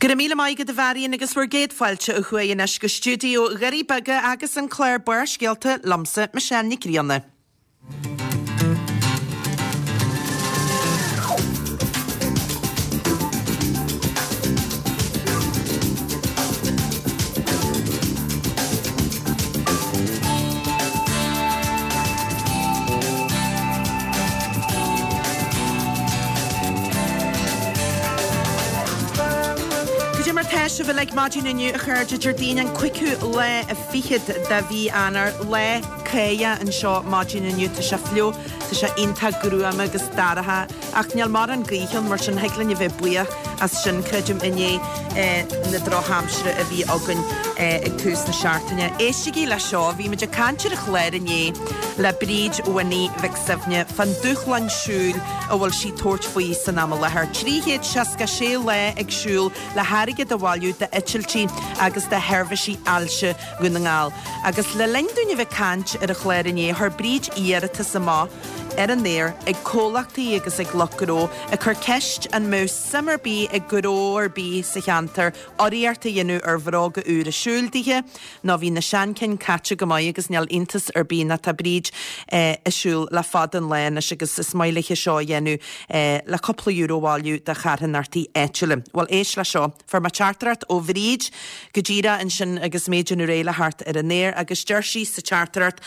Go raibh míle maith agat a Mharion agus bhur gcéad fáilte ó thuaidh anois go stiúideo Dhoirí Beaga agus an clár Barrscéalta liomsa, Michelle Nic Grianna. Cad é mar tá sibh uilig maidin inniu a chairde, Déardaoin an cúigiú lá fichead de mhí Eanáir, lá cáidheach anseo maidin inniu, tá sé fliuch, tá sé iontach gruama agus dorcha ach níl mórán gaoithe ann mar sin thig linn a bheith buíoch as sin, creidim, i ndiaidh na drochaimsire a bhí againn ag tús na seachtaine. Éistigí le seo, bhí muid ag caint ar an chlár inné le Bríd Winnie Mhic Suibhne fán dúshlán siúil a bhfuil sí ag tabhairt faoi san am i láthair. 366 lá ag siúl le hairgead a bhailiú d'eitiltí agus do sheirbhísí ailse Dhún na nGall. Agus le linn dúinn a bheith ag caint ar an chlár inné, chuir Bríd iarratas amach ar an aer ag comhlachtaí agus ag lucht gnó ag cur ceist an mbeadh suim ar bith ag gnó ar bith sa cheantar urraíocht a dhéanamh ar bhróga úra siúil dithe nó bhí na seanchinn caite go maith agus níl iontas ar bith nó tá Bríd ag siúl le fada an lá anois agus is maith léithe seo a dhéanamh le cúpla euro a bhailiú do charthanachtaí áitiúla. Bhuel éist le seo. Fuair mé teachtaireacht ó Bhríd go díreach ansin agus mé ag déanamh réidh le theacht ar an aer agus deir sí sa teachtaireacht,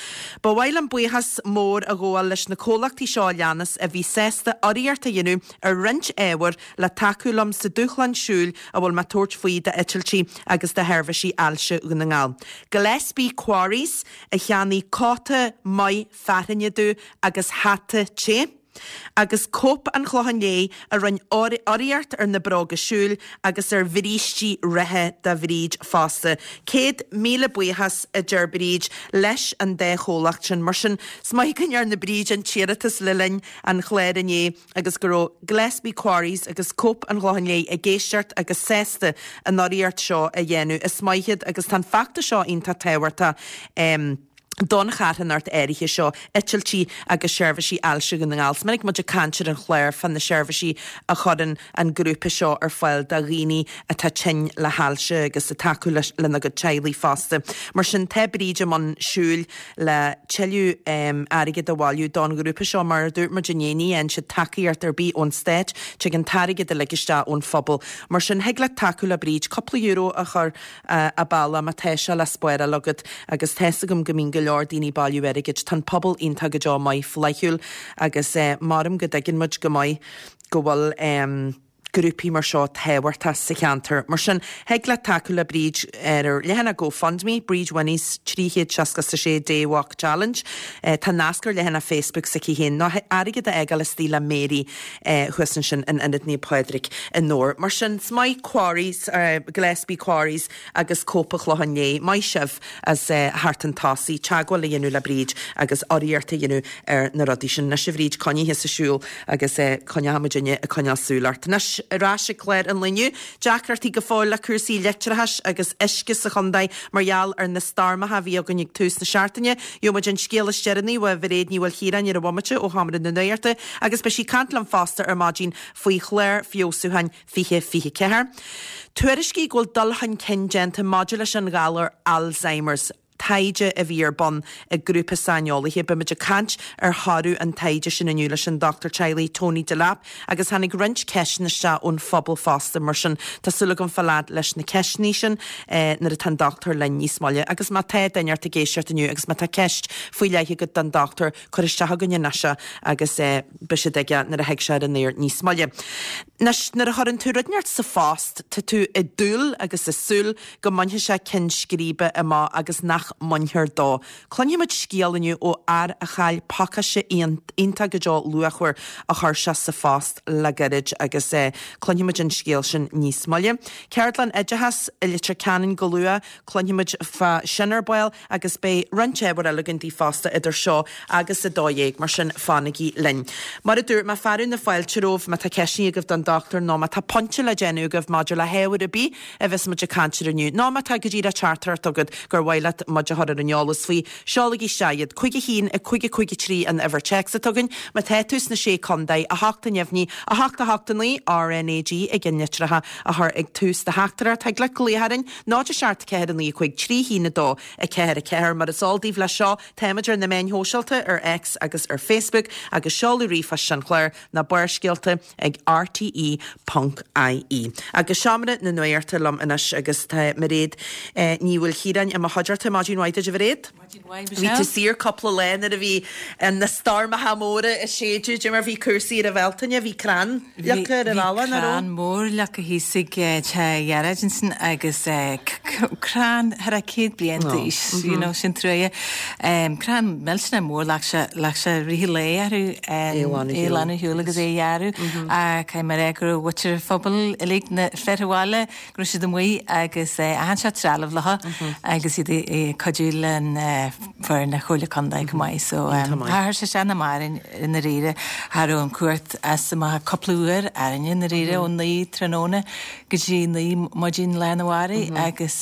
Ba mhaith liom buíochas mór a ghabháil leis na comhlachtaí seo a leanas a bhí sásta urraíocht a dhéanamh ar roinnt ábhair le tacú liom sa dúshlán siúil a bhfuil mé ag tabhairt faoi d'eitiltí agus do sheirbhísí ailse Dhún na nGall. Gillespie Quarries a cheannaigh cóta maith fearthainne domh agus hata te. Agus Cope an Chlocháin Léith a rinne urraíocht ar na bróga siúil agus ar bhrístí reatha do Bhríd fosta. 100,000 buíochas, a deir Bríd, leis an dá chomhlacht sin. Mar sin, is maith go ndearna Bríd an t-iarratas le linn an chláir inné agus go raibh Gillespie Quarries agus Cope an Chlocháin Léith ag éisteacht agus sásta an urraíocht seo a dhéanamh. Is maith iad agus tá an feachtas seo iontach tábhachtach. don charthanacht áirithe seo, eitiltí agus seirbhísí ailse Dhún na nGall. Is minic muid ag caint ar an chlár fá na seirbhísí a chuireann an grúpa seo ar fáil do dhaoine atá tinn le hailse agus ag tacú lena gcuid teaghlaigh fosta. Mar sin, tá Bríd i mbun siúil le tuilleadh airgid a bhailiú don ghrúpa seo. Mar a dúirt muid inné, ní fhaigheann siad tacaíocht ar bith ón stát, tig an t-airgead uilig isteach ón phobal. Mar sin, thig leat tacú le Bríd cúpla euro a chur a bealach má tá sé le spáráil agat agus tá's agam go mbíonn go leor daoine ag bailiú airgid. Tá an pobal iontach go deo maith flaithiúil agus maram go dtuigeann muid go maith go bhfuil grúpaí mar seo tábhachtach sa cheantar. Mar sin, thig leat tacú le Bríd ar ar leathanach GoFundMe, Bríd Winnie's 366 Day Walk Challenge. Tá nasc ar leathanach Facebook s'aici féin nó airgead a fhágáil istigh le Mary. thuas ansin in Ionad Naomh Pádraig i nDobhar. Mar sin, is maith Quarries, Gillespie Quarries agus Cope an Chlocháin Léith, maith sibh as theacht chun tosaigh, teagmháil a dhéanamh le Bríd agus urraíocht a dhéanamh ar na rudaí sin. Anois a Bhríd, coinnigh thusa ag siúl agus coinneoidh muidinne ag coinneáil súil ort. Anois, ar ais ag clár an lae inniu, deacrachtaí go fóill le cúrsaí leictreachais agus uisce sa chontae mar gheall ar na stoirmeacha a bhí againn ag tús na seachtaine. Gheobhaidh muid an scéal is deireanaí ó Mhairéad Ní Mhaoilchiaráin ar an bhomaite ó Sheomra na Nuachta agus beidh sí ag caint liom fosta ar maidin faoi chlár feabhsúcháin 2024. Tuairiscí go bhfuil dul chun cinn déanta maidir leis an ghalar Alzheimer's, taighde a bhí ar bun ag grúpa saineolaithe. Beidh muid ag caint ar thoradh an taighde sin inniu leis an dochtúir teaghlaigh Tony Delap Agus tháinig roinnt ceisteanna isteach ón phobal fosta, mar sin tá súil agam fáil fhad leis na ceisteanna sin nuair atá an dochtúir linn níos moille. Agus má tá duine ort ag éisteacht inniu agus má tá ceist faoi leith agat don dochtúir, cuir isteach chugainn anois é agus beidh siad aige nuair a thig sé ar an aer níos moille. Anois, nuair a chuireann tú rud inteacht sa phost, tá tú ag dúil agus ag súil go mbainfidh sé ceann scríbe amach agus nach mbainfear dó. Cluinfidh muid scéal inniu ó fhear a chaill pacáiste iontach go deo luachmhar a chuir sé sa phost le gairid agus cluinfidh muid an scéal sin níos moille. Ceardlann oideachais i Leitir Ceanainn go luath, cluinfidh muid fá sin ar ball agus beidh roinnt ábhar eile againn daoibh fosta idir seo agus 12, mar sin fanaigí linn. Mar a dúirt mé, fearadh na fáilte romhaibh má tá ceisteanna agaibh don dochtúir nó má tá pointe le déanamh agaibh maidir le hábhar ar bith a bheas muid ag caint air inniu, nó má tá go díreach teachtaireacht agat gur mhaith leat muid. muid a chur ar an eolas faoi, seolaigí isteach iad. 5 1 5 5 3 an uimhir téacs atá againn. Má tá tú sna Sé Contae, 8 neamhní, 8 8 9, RnaG i gceannlitreacha a chur ag tús do theachtaireacht. Thig leat glaoch orainn, 0 7 4 9 5 3 1 2 4 4. Mar is eol daoibh leis seo, táimid ar na meáin shóisialta, ar X agus ar Facebook, agus seoladh ríomhphoist an chláir, ná Barrscéalta ag rte ponc ie. Agus Seomra na Nuachta liom anois agus tá Mairéad Ní Mhaoilchiaráin i mo chuideachta. Maidin mhaith duit a Mhairéad. Maidin mhaith Bhí Michelle. tú saor cúpla lá nuair a bhí na stoirmeacha móra ag séideadh, dé mar bhí cúrsaí ar an Bhealtaine, bhí crann leagtha ar an Bhí bhealach, nach raibh? crann mór leagtha thíos ag teach Ghearóid ansin agus crann thar a 100 bliain d'aois, you know, sin truaighe. Crann millteanach mór, ghlac sé, ghlac sé rith an lae orthu é a ghlanadh ar shiúl agus é a ghearradh. Ach caithfidh mé a rá go raibh muintir an phobail uilig, na fir an bhaile, go raibh siad amuigh agus achan seort trealamh leo agus iad ag cuidiú le foireann na Comhairle Contae chomh maith. So chuir sé isteach nach maith orainn i ndáiríre. Cha raibh an cumhacht as amach ach cúpla uair orainne i ndáiríre ó 9 tráthnóna go dtí 9 maidin lá arna mhárach agus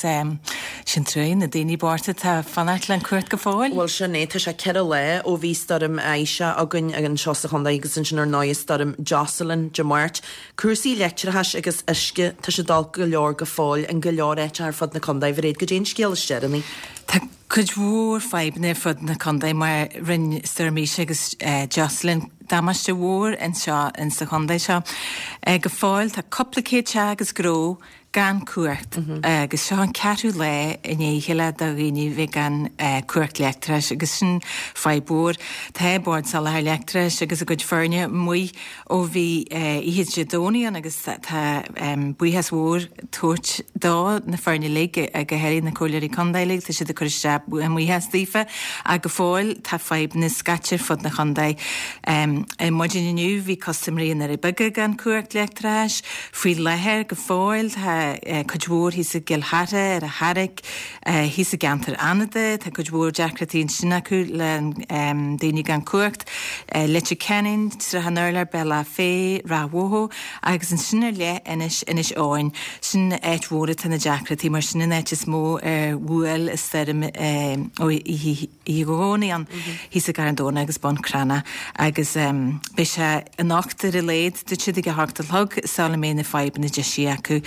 sin truaighe na daoine bochta atá ag fanacht le an cumhacht go fóill. Bhuel sin é, tá sé 4 lá ó bhí stoirm Isha againn anseo sa chontae agus ansin ar ndóigh stoirm Jocelyn Dé Máirt. Cúrsaí leictreachais agus uisce, tá siad olc go leor go fóill in go leor áiteacha ar fud na contae. Mhairéad, goidé an scéal is deireanaí? Tá cuid mhór fadhbanna ar fud na contae mar rinne Stoirm Isha agus Jocelyn damáiste mhór anseo insa chontae seo. Go fóill tá cúpla céad teach agus gnó gan cumhacht agus seo an ceathrú lá i ndiaidh a chéile do dhaoine bheith gan cumhacht leictreachais agus sin fadhb mhór. Tá Bord Soláthair Leictreachais agus a gcuid foirne amuigh ó bhí oíche Dé Domhnaigh ann agus tá buíochas mhór tabhairt do na foirne uilig, go háirithe na Comhairleoirí Contae uilig, tá siad ag cur isteach a mbuíochas daofa ach go fóill tá fadhbanna scaite ar fud na chontae. Ar maidin inniu bhí custaiméirí i nDoirí Beaga gan cumhacht leictreachais. Faoi láthair go fóill tá cuid mhór thíos i gCill Chartha, ar an Charraic, thíos i gceantar Fhánada, tá cuid mhór deacrachtaí ansin acu le daoine gan cumhacht, Leitir Ceanainn, Srath an Urláir, Bealach Féich, Ráth Bhoth agus ansin ar leith Inis, Inis Eoghain. Sin áit mhór atá na deacrachtaí mar sin an áit is mó ar bhuail an stoirm ó oíche Dhomhnaigh ann, thíos i gCarn Domhnach agus Bun Cranncha agus beidh sé anocht ar a laghad, dúirt siad ag a hocht a chlog sula mbeidh na fadhbanna deisithe acu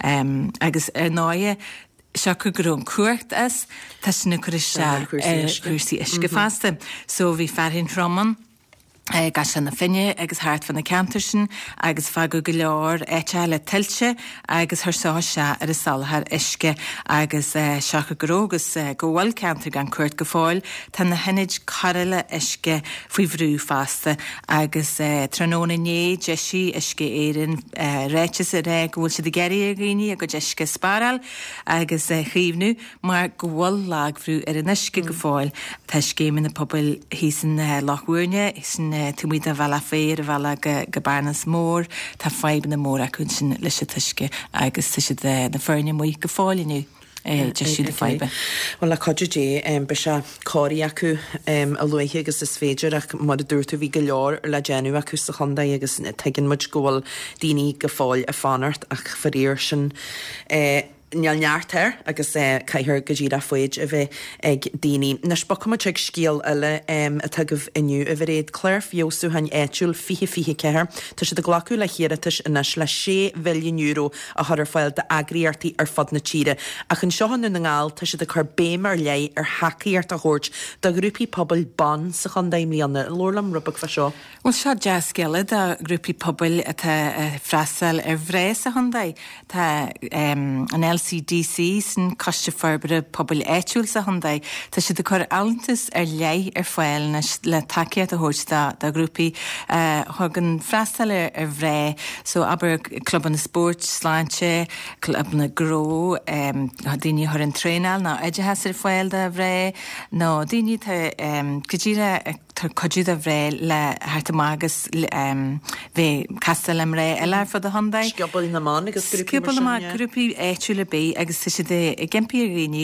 agus ar ndóighe siocair go raibh an cumhacht as, tá sin ag cur isteach ar chúrsaí uisce fosta. So bhí fearthainn throm ann i gCaisleán na Finne agus thart fá na ceantair sin agus fágadh go leor áiteacha le tuilte agus chuir seo isteach ar an soláthar uisce agus siocair go raibh agus go bhfuil ceantair gan cumhacht go fóill, tá na hionaid cóireála uisce faoi bhrú fosta agus tráthnóna inné d'eisigh Uisce Éireann ráiteas ag rá go bhfuil siad ag iarraidh ar dhaoine a gcuid uisce a spáráil agus a chaomhnú mar go bhfuil lagbhrú ar an uisce go fóill. Tá scéimeanna pobail thíos in Loch Mhúirne, sin taobh amuigh de Bhealach Féich ar an bhealach go Bearnas Mór, tá fadhbanna móra acu ansin leis an t-uisce agus tá siad, na foirne amuigh go fóill inniu ag deisiú na faidhbe. Bhuel, le cuidiú Dé, beidh sé cóirithe acu a luaithe agus is féidir ach mar a dúirt tú bhí go leor le déanamh acu sa chontae agus tuigeann muid go bhfuil daoine go fóill ag fanacht ach faraor sin Níl neart air agus caithfear go díreach foighid a bheith ag daoine. Anois bogfaidh muid chuig scéal eile atá agaibh inniu, a Mhairéad. Clár Feabhsúcháin Áitiúil 2024. Tá siad ag glacadh le hiarratais anois le €6 mhilliún a chur ar fáil d'eagraíochtaí ar fud na tíre. Ach anseo i nDún na nGall tá siad ag cur béim ar leith ar thacaíocht a thabhairt do ghrúpaí pobail ban sa chontae i mbliana. Labhair liom rud beag fá seo. Bhuel, seo dea-scéala do ghrúpaí pobail atá ag freastal ar mhná sa chontae. Tá an LCDC, sin Coiste Forbartha Pobail Áitiúil sa chontae, tá siad ag cur allúntas ar leith ar fáil anois le tacaíocht a thabhairt do ghrúpaí a thugann freastal ar mhná. So, abair, clubanna spóirt, sláinte, clubanna gnó, daoine a chuireann traenáil nó oideachas ar fáil do mhná, nó daoine atá go díreach ag. tabhairt cuidiú do mhná le theacht amach agus bheith ag castáil le mná eile ar fud an chontae. Scioból na mBan agus grúpaí mar sin, yeah. Scioból na mBan, grúpaí áitiúla ar bith agus tá siad ag impí ar dhaoine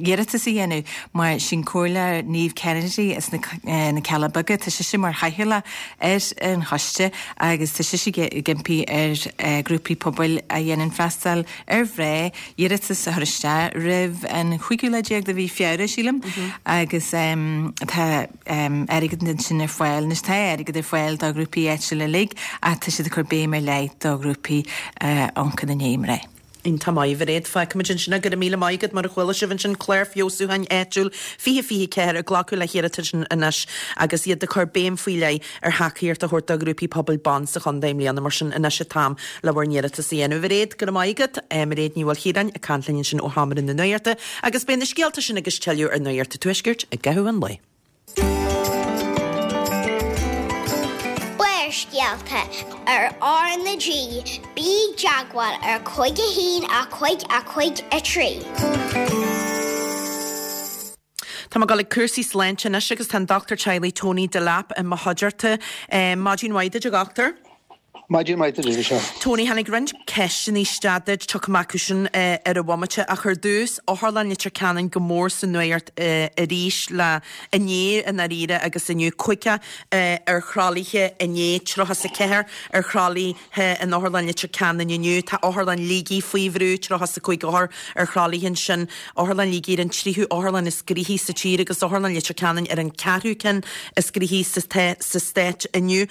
iarratas a dhéanamh mar sin Comhairleoir Niamh Kennedy as na Cealla Beaga, tá sise mar chathaoirleach ar an choiste agus tá sise ag impí ar ghrúpaí pobail a dhéanann freastal ar mhná iarratas a chur isteach roimh an chúigiú lá déag de mhí Feabhra, sílim, agus tá airgead ansin ar fáil. Anois tá airgead ar fáil do ghrúpaí áitiúla uilig ach tá siad ag cur béim ar leith do ghrúpaí a amharcann i ndiaidh mná. Iontach maith, a Mhairéad. Fágfaimid ansin é. Go raibh míle maith agat. Mar a chuala sibh ansin, Clár Feabhsúcháin Áitiúil 2024 ag glacadh le hiarratais anois agus iad ag cur béim faoi leith ar thacaíocht a thabhairt do ghrúpaí pobail ban sa chontae i mbliana. Mar sin, anois an t-am le bhur n-iarratas a dhéanamh. A Mhairéad, go raibh maith agat. Mairéad Ní Mhaoilchiaráin ag caint linn ansin ó Sheomra na Nuachta agus beidh na scéalta sin agus tuilleadh ar Nuacht an Tuaiscirt i gcaitheamh an lae. Barrscéalta ar R na G, bí i dteagmháil ar 5 1 5 5 3. Tá mé ag dul ag cúrsaí sláinte anois agus tá an Dochtúir Teaghlaigh Tony Delap i mo chuideachta. Maidin mhaith duit a dhochtúir. Maidin mhaith duit, a Mhichelle. Tony, tháinig roinnt ceisteanna isteach duit, tiocfaidh mé acu sin ar an bhomaite, ach ar dtús, Otharlann Leitir Ceanainn go mór sa nuacht arís le inné i ndáiríre agus inniu, 50 ar thralaithe inné, 34 ar thralaithe in Otharlann Leitir Ceanainn inniu, tá Otharlann Shligigh faoi bhrú, 35 othar ar thralaithe ansin, Otharlann Shligigh ar an tríú otharlann is gnoithí sa tír agus Otharlann Leitir Ceanainn ar an ceathrú ceann is gnoithí sa stát inniu.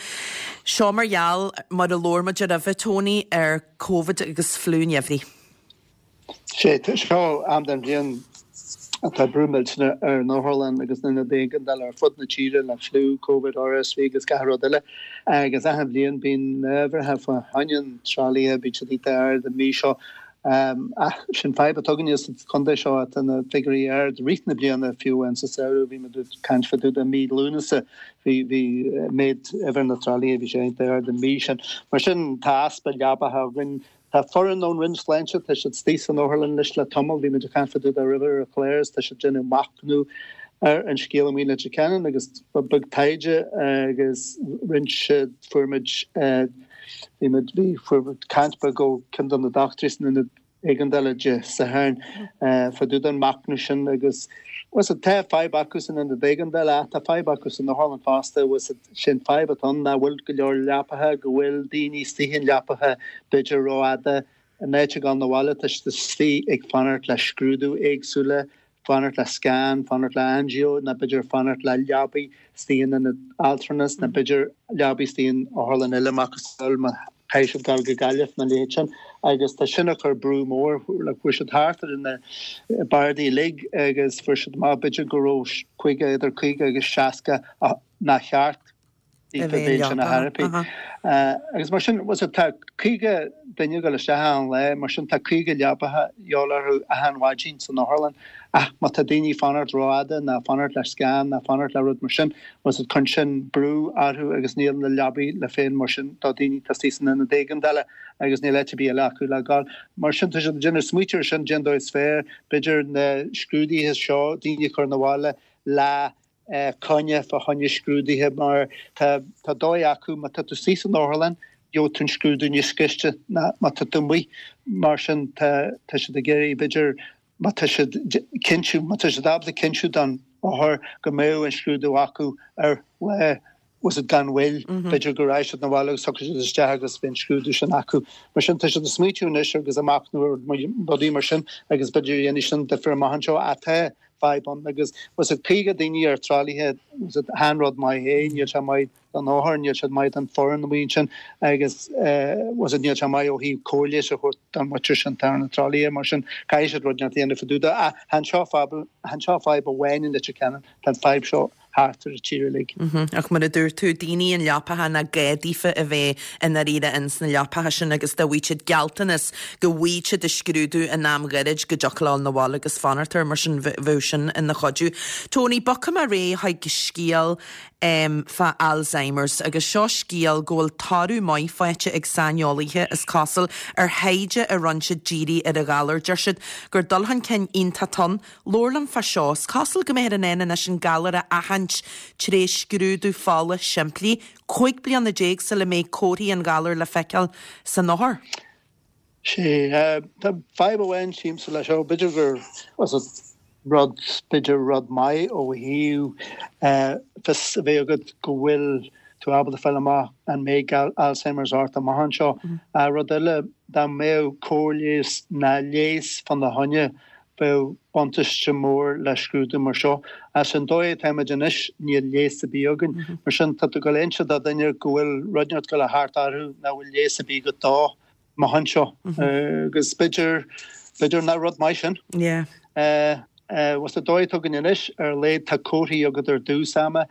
Seo mar gheall, mar a labhair muid roimhe, Tony, ar Covid agus fliú an gheimhridh. Sé, seo am den bhliain atá brú millteanach ar an otharlann agus na hionaid éigeandála ar fud na tíre le fliú, Covid, RSV agus gach rud eile. Agus achan bhliain bíonn na huimhreacha fá choinne an tralaithe, bíonn siad iontach ard an mhí seo. Ach sin fadhb atá againne sa chontae seo, tá na figiúirí ard i rith na bliana, fiú amháin sa samhradh, bhí muid ag caint fá dtaobh de mí Lúnasa, bhí, bhí méid uimhir na tralaithe, bhí sé iontach ard an mhí sin. Mar sin, tá easpa leabacha againn. Tá foireann ón Roinn Sláinte, tá siad istigh san otharlann anois le tamall, bhí muid ag caint fá dtaobh de roimhe ar an chlár agus tá siad ag déanamh machnamh ar an scéal amuigh i Leitir Ceanainn agus ba beag taighde agus rinne siad, fuair muid, Bhí muid, bhí, fuair muid caint beag ó ceann de na dochtúirí san ionad éigeandála Dé Sathairn fá dtaobh den machnamh sin agus bhfuil fhios agat, tá fadhb acu san ionad éigeandála ach tá fadhb acu san otharlann fosta, bhfuil fhios agat, sin fadhb atá ann nach bhfuil go leor leapacha, go bhfuil daoine istigh in leapacha b'fhéidir rófhada, in áit a ghabháil 'na bhaile tá siad istigh ag fanacht le scrúdú éagsúla, fanacht le scan, fanacht le angio nó b'fhéidir fanacht le leabaí istigh in ionad altranais nó b'fhéidir leabaí istigh in otharlann eile macasamhail má chaithfidh siad dul go Gaillimh nó a leithéid sin agus tá sin ag cur brú mór like fuair siad thart ar na bardaí uilig agus fuair siad amach b'fhéidir go raibh 50 idir 50 agus 60 nár cheart a bheith ansin ar thor bith. Agus mar sin, bhfuil fhios agat, tá 50 duine ag dul isteach achan lá, mar sin tá 50 leabacha de dhíobháil orthu achan mhaidin san otharlann. Ach má tá daoine ag fanacht rófhada ná fanacht le scan ná fanacht le rud mar sin, bhfuil fhios agat, cuireann sin brú orthu agus níl na leabaí le fáil mar sin do daoine atá istigh san ionad éigeandála agus níl áit ar bith eile acu le gabháil. Mar sin tá siad ag déanamh smaoitiú ar sin, cén dóigh is fearr, b'fhéidir na scrúduithe seo, daoine a chur 'na bhaile le coinne fá choinne scrúduithe mar tá tá dóigh acu má tá tú istigh san otharlann gheobhaidh tú an scrúdú níos gaiste ná má tá tú amuigh mar sin tá tá siad ag iarraidh b'fhéidir má tá siad cinntiú má tá siad ábalta cinntiú don othar go mbeadh an scrúdú acu ar lá bhfuil fhios agat gan mhoill b'fhéidir go raghaidh siad 'na bhaile agus tiocfaidh siad isteach agus beidh an scrúdú sin acu. Mar sin tá siad ag smaoitiú anois agus ag machnamh ar rudaí mar sin agus b'fhéidir dhéanfaidh sin difear amach anseo ach tá fadhb ann agus bhfuil fhios agat 50 daoine ar tralaithe bhfuil fhios agat chan rud maith é, níl sé maith don othar, níl sé maith don foireann amuigh ansin agus bhfuil fhios agat níl sé maith ó thaobh cóir leighis a thabhairt don mhuintir sin atá ar na tralaithe mar sin caithfidh siad rud inteacht a dhéanamh fá dtaobh de. Ach chan seo fadhb, chan seo fadhb amháin i Leitir Ceanainn, tá an fadhb seo thart ar an tír uilig. Ach mar a dúirt tú, daoine i leapacha nach gá daofa a bheith i ndáiríre ins na leapacha sin agus dá bhfaigheadh siad gealltanas go bhfaighidh siad a scrúdú in am ghairid go dtiocfadh leo 'na bhaile agus fanacht air, mar sin bheadh sin ina chuidiú. Tony, bogfaidh mé ar aghaidh chuig scéal fá Alzheimer's agus seo scéal go bhfuil toradh maith faighte ag saineolaithe, is cosúil, ar thaighde a rinne siad dírithe ar an ghalar. Deir siad gur dul chun cinn iontach atá ann. Labhair liom fá seo. Is cosúil go mbeifear in ann anois an galar a aithint. aithint tré scrúdú fola simplí, 15 bliana sula mbeidh comharthaí an ghalair le feiceáil san othar. Sea, tá fadhb amháin sílimse leis seo, b'fhéidir gur rud, b'fhéidir rud maith ó thaobh fios a bheith agat go bhfuil tú ábalta fáil amach an mbeidh Alzheimer's ort amach anseo. Rud eile, dá mbeadh cóir leighis ná leigheas fána choinne, bheadh buntáiste mór le scrúdú mar seo. As an dóigh atáimid anois, níl leigheas ar bith againn. Mar sin, tá tú ag dul a inse do dhuine go bhfuil rud inteacht ag dul a theacht orthu nach bhfuil leigheas ar bith agat dó amach anseo. Agus b'fhéidir, b'fhéidir nach rud maith sin. Yeah. Bhuel, sa dóigh atá againn anois, ar a laghad tá comharthaí agat ar dtús ama.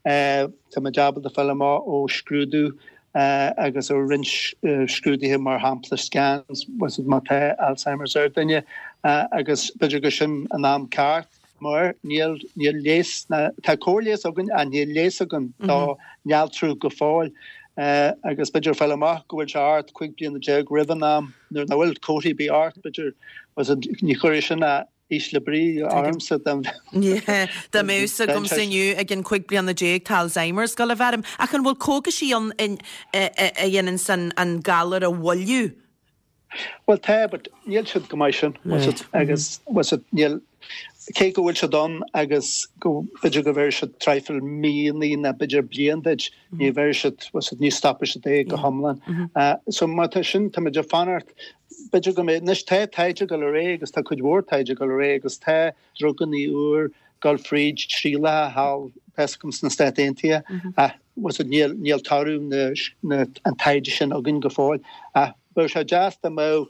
Táimid ábalta fáil amach ó scrúdú agus ó roinnt scrúduithe, mar shampla scans, má tá Alzheimer's ar duine agus b'fhéidir gur sin an am ceart mar níl níl leigheas, tá cóir leighis againn ach níl leigheas againn do néaltrú go fóill agus b'fhéidir fáil amach go bhfuil sé ort 15 bliana roimh an am nuair nach bhfuil comharthaí ar bith ort, b'fhéidir ní chuirfidh sin a ísle brí ormsa dá mbeadh a fhios agamsa inniu ag an 15 bliana tá Alzheimer's ag dul a bheith orm. Ach an bhfuil cógaisí ann a dhéananns an galar a mhoilliú? Bhuel tá, but níl siad chomh maith sin. Agus níl, cé go bhfuil siad ann agus go b'fhéidir go bhféadfaidh siad traidhfil míonna nó b'fhéidir bliain duit, ní bheidh siad, ní stopfaidh siad é go hiomlán. So má tá sin, táimid ag fanacht B'fhéidir go mbeidh, anois tá taighde ag dul ar aghaidh agus tá cuid mhór taighde ag dul ar aghaidh agus tá drugannaí úr ag dul fríd trialacha thall, tá fhios agam sna Stáit Aontaithe ach bhfuil níl, níl toradh na, na, an taighde sin againn go fóill ach bheadh sé deas dá mbeadh,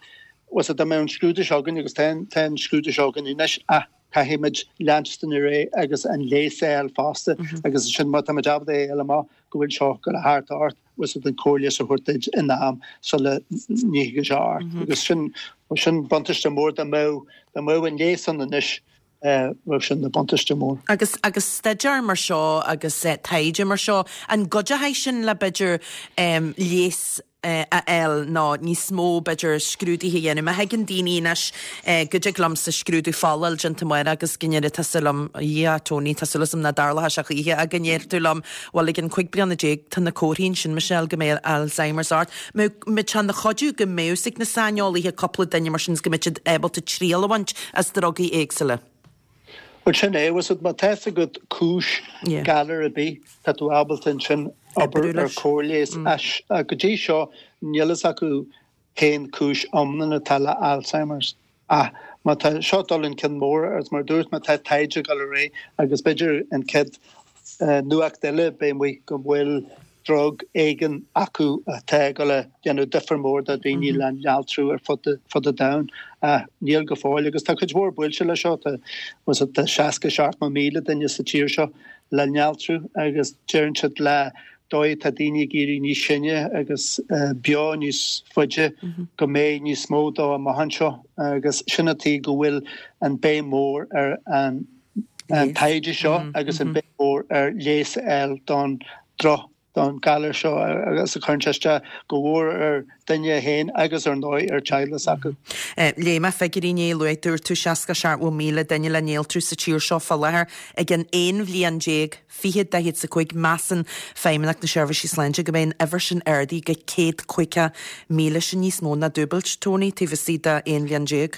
bhfuil dá mbeadh an scrúdú seo againn agus tá, tá an scrúdú seo againn anois ach caithfimid leanstan ar aghaidh agus an leigheas a fháil fosta agus ansin má táimid ábalta é a fháil amach go bhfuil seo ag dul a theacht ort. bhfuil siad an cóir leighis a thabhairt duit in am sula dtiocfaidh sé ort. Agus sin, sin buntáiste mór dá mbeadh, dá mbeadh an leigheas ann anois, bheadh sin ina buntáiste mór. Agus, agus staidéar mar seo agus taighde mar seo, an gcuideoidh sin le b'fhéidir leigheas a fháil nó níos mó b'fhéidir scrúduithe a dhéanamh? Má thuigeann daoine anois go dtig liomsa scrúdú fola a fháil déanta amárach agus go ndéarfaidh tusa liom, a Dhia, Tony, tá súil agam nach dtarlóidh sé choíche ach go ndéarfaidh tú liom, Bhuel, ag an 15 bliana, tá na comharthaí ansin, Michelle, go mbeidh Alzheimer's ort. Mbeadh sé ina chuidiú go mbeadh fhios ag na saineolaithe cúpla duine mar sin is go mbeadh siad ábalta triail a bhaint as drugaí éagsúla. Bhuel, sin é, bhfuil fhios agat, má tá fhios agat cúis galar ar bith, tá tú ábalta ansin obair ar cóir leighis. Go dtí seo, níl fhios acu cén cúis iomlán atá le Alzheimer's. Ach má tá seo dul chun cinn mór, agus mar a dúirt mé tá taighde ag dul ar aghaidh agus b'fhéidir an chéad nuacht eile beidh amuigh go bhfuil drug éigin acu atá ag dul a dhéanamh difear mór do dhaoine le néaltrú ar fud fud an domhain. Ach níl go fóill agus tá cuid mhór buailte le seo, tá tá 60, 70,000 duine sa tír seo le néaltrú agus deireann siad le dóigh atá daoine ag éirí níos sine agus beo níos faide go mbeidh níos mó dó amach anseo agus sin an tuige go bhfuil an béim mhór ar an taighde seo agus an béim mhór ar leigheas a fháil don droch don galar seo agus a chuireann sé isteach go mhór ar duine féin agus ar ndóigh ar teaghlaigh s'acu. Léigh mé figiúirí inné, luaigh dúirt tú 60, 70,000 duine le néaltrú sa tír seo fá láthair ag an 11 bhliain. 2045, measann Feidhmeannacht na Seirbhísí Sláinte go mbeidh an uimhir sin ardaithe go 150,000, sin níos mó ná dúbailt, Tony, taobh istigh de 11 bhliain.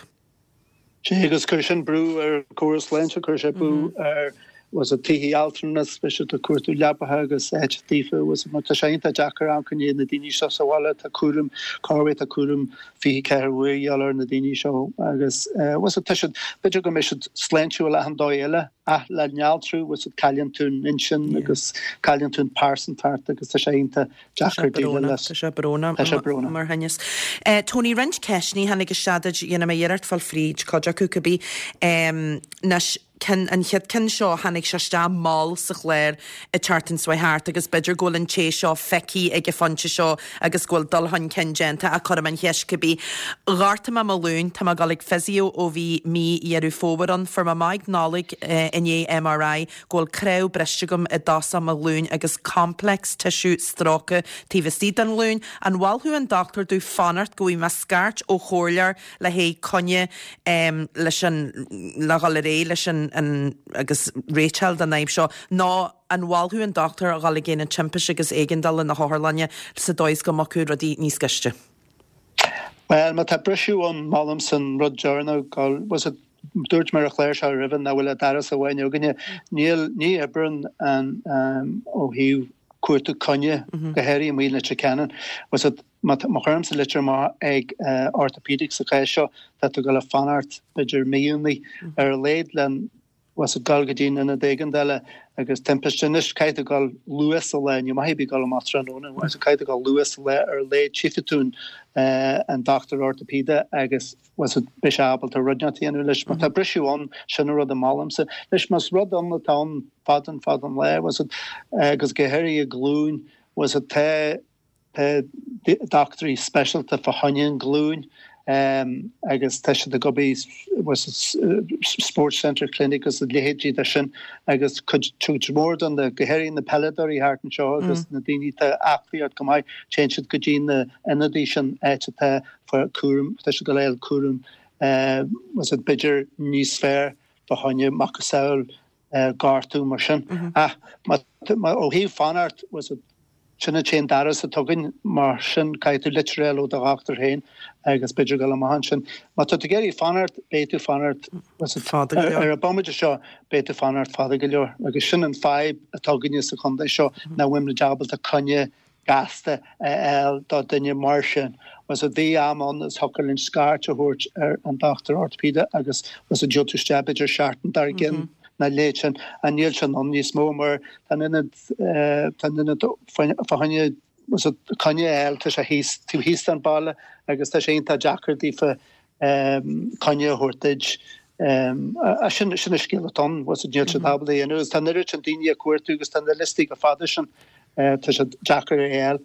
Sea, agus cuirfidh sin brú ar an gcóras sláinte, cuirfidh sé brú ar bhfuil fhios agat tithe altranais, beidh siad ag cuartú leapacha agus áit daofa, bhfuil fhios agat, mar tá sé iontach deacair amharc i ndiaidh na daoine seo sa bhaile, tá cúram, corruair tá cúram 24 uair a dhíobháil ar na daoine seo agus bhfuil fhios agat, tá siad, b'fhéidir go mbeidh siad sláintiúil achan dóigh eile. Ach le néaltrú, bhfuil fhios agat, cailleann tú an intinn agus cailleann tú an pearsantacht agus tá sé iontach deacair déileáil leis. Tá sé brónach. Tá sé brónach. Mar thinneas. Tony, roinnt ceisteanna a tháinig isteach duit, dhéanfaidh mé iarracht fáil fríd cuid acu cibé. Anois, ceann, an chéad ceann seo, tháinig sé isteach mall sa chlár an tseachtain seo thart agus b'fhéidir go bhfuil an té seo feicthe ag an phointe seo agus go bhfuil dul chun cinn déanta ach cuirfidh mé an cheist cibé. Ghortaigh mé mo ghlúin, tá mé ag dul ag physio ó bhí mí Dheireadh Fómhair ann. Fuair mé amach ag Nollaig i ndiaidh MRI go bhfuil cnámh briste agam i dtosach mo ghlúin agus complex tissue stróicthe taobh istigh den ghlúin. An mholfadh an dochtúir domh fanacht go bhfaighidh mé scairt ó chomhairleoir le haghaidh coinne leis an le dhul ar aghaidh leis an. an agus réiteáil don fhadhb seo nó an mholfadh an dochtúir a dhul ag Aonad Timpiste agus Éigeandála na hotharlainne sa dóigh is go mbeadh rudaí níos gaiste? Bhuel, má tá briseadh ann, molaimse an rud deireanach, go, bhfuil 's agat, dúirt mé ar an chlár seo roimhe nach bhfuil ach doras amháin againne. Níl, ní oibreann an, ó thaobh cuartú coinne, go háirithe amuigh i Leitir Ceanainn. Bhfuil 's agat, má chuirimse litir amach ag orthopaedic sa chás seo, tá tú ag dul a fanacht b'fhéidir míonna ar a laghad len, bhfuil 's agat, dul go dtí an ionad éigeandála agus timpiste. Anois caithfidh tú dul luath sa lá, ní maith ar bith dul amach tráthnóna, bhfuil 's agat, caithfidh tú dul luath sa lá ar a laghad tchífidh tú an dochtúir orthopaeide agus bhfuil 's agat, beidh sé ábalta rud inteacht a dhéanamh leis. Má tá briseadh ann, sin an rud a molaimse. Anois más rud ann atá ann fada an fada an lá, bhfuil 's agat, agus go háirithe glúin, bhfuil 's agat, tá Tá dochtúirí speisialta fá choinne an ghlúin agus tá siad ag obair Sports Centre Clinic agus a leithéidí de sin agus cuid mhór de na, go háirithe na peileadóirí thart anseo agus na daoine atá aclaí go maith, téann siad go dtí na ionadaí sin áit atá fá cúram, tá siad ag fáil cúram b'fhéidir níos fearr fá choinne macasamhail gortú mar sin. Ach ó thaobh fanacht, sin an t-aon doras atá againn, mar sin caithfidh tú litir a fháil ó do dhochtúir féin agus b'fhéidir dul amach ansin. Má tá tú ag iarraidh fanacht, beidh tú fanacht fada go leor. Ar an bomaite seo, beidh tú fanacht fada go leor. Agus sin an fadhb atá againne sa chontae seo, nach bhfuil muid ábalta coinne gasta a fháil do duine mar sin. Bhfuil 's agat, bhí am ann is thiocfadh linn scairt a thabhairt ar an dochtúir orthopaeide agus bhfuil 's agat, gheobhadh tú isteach b'fhéidir seachtain dár gcionn nó a leithéid sin. Ach níl sin ann níos mó mar tá an ionad tá an ionad fá choinne bhfuil 's agat, coinne a fháil tá sé thíos taobh thíos den baile agus tá sé iontach deacair daofa coinne a thabhairt duit. Sin sin an scéal atá ann, bhfuil 's agat, níl siad ábalta a dhéanamh agus tá an oiread sin daoine ag cuartú agus tá na liostaí chomh fada sin, tá sé deacair a fháil.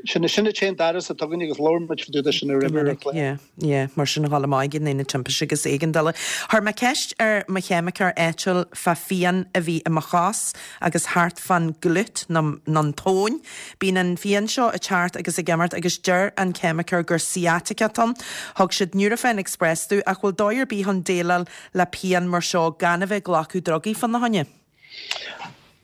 Sin sin an t-aon doras atá againn agus labhair muid fá dtaobh de sin roimhe ar an chlár. Yeah, yeah, mar sin a dhul amach ag an Aonad Timpiste agus Éigeandála. Chuir mé ceist ar mo cheimiceoir áitiúil fá phian a bhí i mo chos agus thart fán glute nó an tóin. Bíonn an phian seo ag teacht agus ag imeacht agus deir an ceimiceoir gur sciatica atá ann. Thug siad Nurofen Express domh ach bhfuil dóigh ar bith chun déileáil le pian mar seo gan a bheith ag glacadh drugaí fána choinne?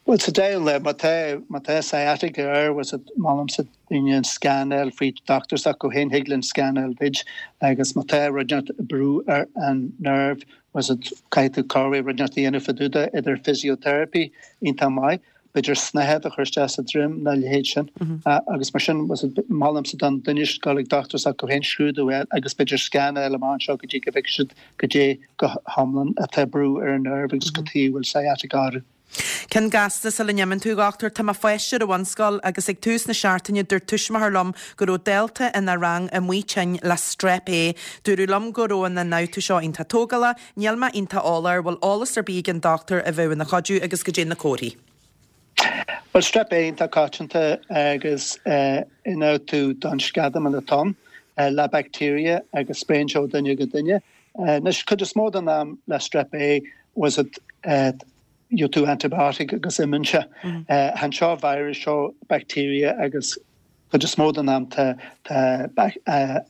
Bhuel, sa deireadh lae, má tá, má tá sciatica air, bhfuil 's agat, molaimse daoine an scan a fháil fríd dochtúir s'acu féin, thig linn scan a fháil duit agus má tá rud inteacht ag brú ar an nerve, bhfuil 's agat, caithfidh tú corruair rud inteacht a dhéanamh fá dtaobh de, idir physiotherapy, iontach maith, b'fhéidir snáthaid a chur isteach sa droim nó a leithéid sin. Agus mar sin, bhfuil 's agat, molaimse don duine dul ag dochtúir s'acu féin, scrúdú a fháil agus b'fhéidir scan a fháil amach anseo go dtí go bhfeicfidh siad goidé go hiomlán atá ag brú ar an nerve agus cad chuige a bhfuil sciatica orthu. Ceann gasta sula n-imíonn tú, a dhochtúir. Tá mo pháiste ar an bhunscoil agus ag tús na seachtaine dúirt tuismitheoir liom go raibh dalta ina rang amuigh tinn le Strep A. Dúradh liom go raibh an ionfhabhtú seo iontach tógálach. Níl mé iontach eolach air. Bhfuil eolas ar bith ag an dochtúir a bheadh ina chuidiú agus goidé na comharthaí. Bhuel, Strep A iontach coitianta agus ionfhabhtú don sceadamán atá ann le bacteria agus spréann sé ó duine go duine. Anois, cuid is mó den am le Strep A, bhfuil 's agat, gheobhaidh tú antibiotic agus imíonn sé. Chan seo virus, seo bacteria agus cuid is mó den am tá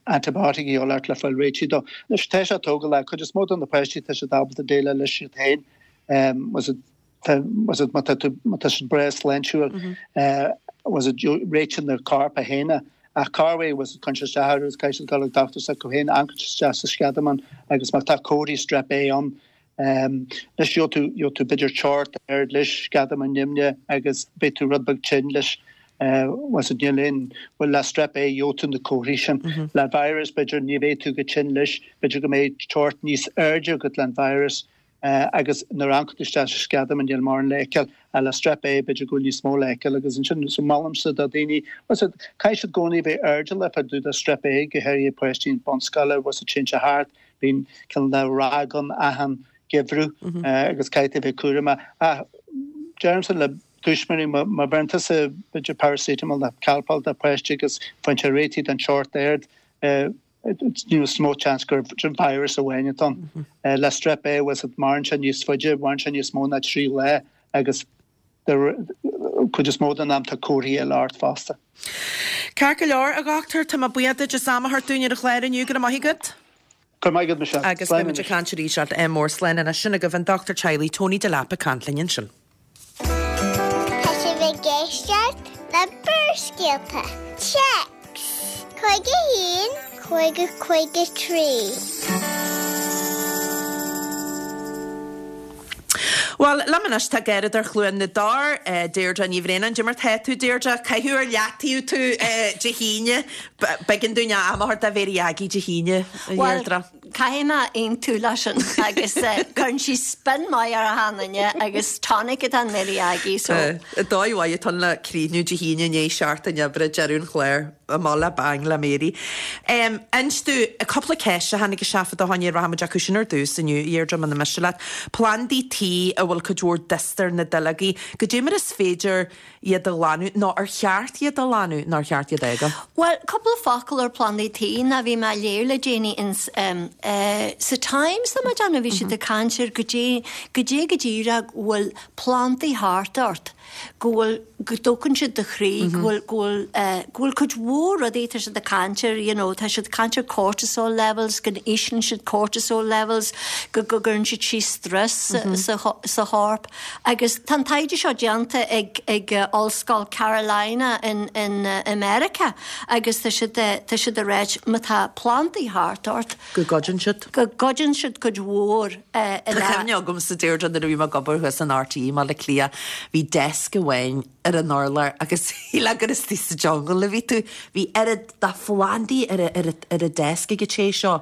antibiotic a dhíobháil ort le fáil réitithe dó. Anois, tá sé tógálach, cuid is mó de na páistí tá siad ábalta déileáil leis iad féin. Bhfuil 's agat, bhfuil 's agat, má tá tú, má tá siad breá sláintiúil, bhfuil 's agat, réitíonn na corp é féin é. Ach corruair, bhfuil 's agat, cuireann sé isteach orthu agus caithfidh siad dul ag dochtúir s'acu féin, amharcann siad isteach sa sceadamán agus má tá comharthaí strep A ann, anois gheobhaidh tú, gheobhaidh tú b'fhéidir teocht ard leis, sceadamán nimhneach agus beidh tú rud beag tinn leis. Bhfuil 's agat, níl aon, bhuel le strep A gheobhaidh tú na comharthaí sin. Le virus b'fhéidir ní bheidh tú chomh tinn leis, b'fhéidir go mbeidh teocht níos airde agat le an virus agus nuair a amharcann tú isteach sa sceadamán níl mórán le feiceáil. Ach le strep A b'fhéidir go bhfuil níos mó le feiceáil agus ansin so molaimse do dhaoine, bhfuil 's agat, caithfidh siad i gcónaí a bheith airdeallach fá dtaobh de strep A go háirithe páistí bunscoile, bhfuil 's agat, téann sé thart, bíonn cineál de ráig ann achan gheimhreadh agus caithfidh tú a bheith cúramach. Ach deirimse le tuismitheoirí má bheireann tusa b'fhéidir paracetamol nó Calpol do pháiste agus faigheann sé réitithe don teocht ard, níos mó seans gur virus amháin atá ann. Le strep A, bhfuil 's agat, maireann sé níos faide, maireann sé níos mó ná 3 lá agus cuid is mó den am tá comharthaí eile ort fosta. Ceart go leor, a dhochtúir, tá mé buíoch duit as am a thabhairt dúinn ar an chlár inniu, go raibh maith agat. Go raibh maith agat, Michelle. Agus beidh muid ag caint arís ádh mór. Slán anois. Sin agaibh an dochtúir teaghlaigh Tony Delap ag caint linn ansin. Tá sibh ag éisteacht le Barrscéalta. Téacs 51 50 53. Bhuel, liom anois tá Garradóir Chluain na dTor, Deirdre Ní Bhraonáin. Cad é mar tá tú, Deirdre? Caitheadh ar leataobh tú Dé hAoine. B'éigean dúinn am a thabhairt do Mhary Aggie Dé hAoine, a Dheirdre. Caithfidh mé aontú leis sin agus cuireann sí spin maith ar achan duine agus tonic atá in Mary Aggie so. Dóigh mhaith atá ann le críochnú Dé hAoine i ndiaidh seachtain oibre, deireadh an chláir, amach le bang le Mary. Inis domh, cúpla ceist a tháinig isteach fá do choinne, rachaidh muid acu sin ar dtús inniu, a Dheirdre, muna miste leat. Plandaí tí a bhfuil cuid mhór dusta ar na duilleogaí, goidé mar is féidir iad a ghlanadh, nó ar cheart iad a ghlanadh, nó ar cheart iad a fhágáil? Bhuel, cúpla focal ar plandaí tí, ná bhí mé ag léamh le déanaí ins eh sa Times, tá mé ag déanamh, bhí siad ag caint ar goidé, goidé go díreach go bhfuil plandaí thart ort, go bhfuil, go dtógann siad do chroí, go bhfuil, go bhfuil eh, go bhfuil cuid mhór rudaí, tá siad ag caint ar, you know, tá siad ag caint ar cortisol levels, go n-íslíonn siad cortisol levels, go, go gcuireann siad síos stress sa, sa, sa chorp. Agus tá an taighde seo déanta ag ag Ollscoil Carolina in in i Meiriceá agus tá siad tá siad ag ráit má tá plandaí thart ort. Go gcuidíonn siad. Go gcuidíonn siad cuid mhór i Tá cuimhne agamsa Deirdre nuair a bhí mé ag obair thuas in RTÉ i mBaile Átha Cliath bhí desk amháin ar an urlár agus shílfeá gur istigh sa jungle a bhí tú. Bhí oiread de phlandaí ar ar an desk ag an té seo.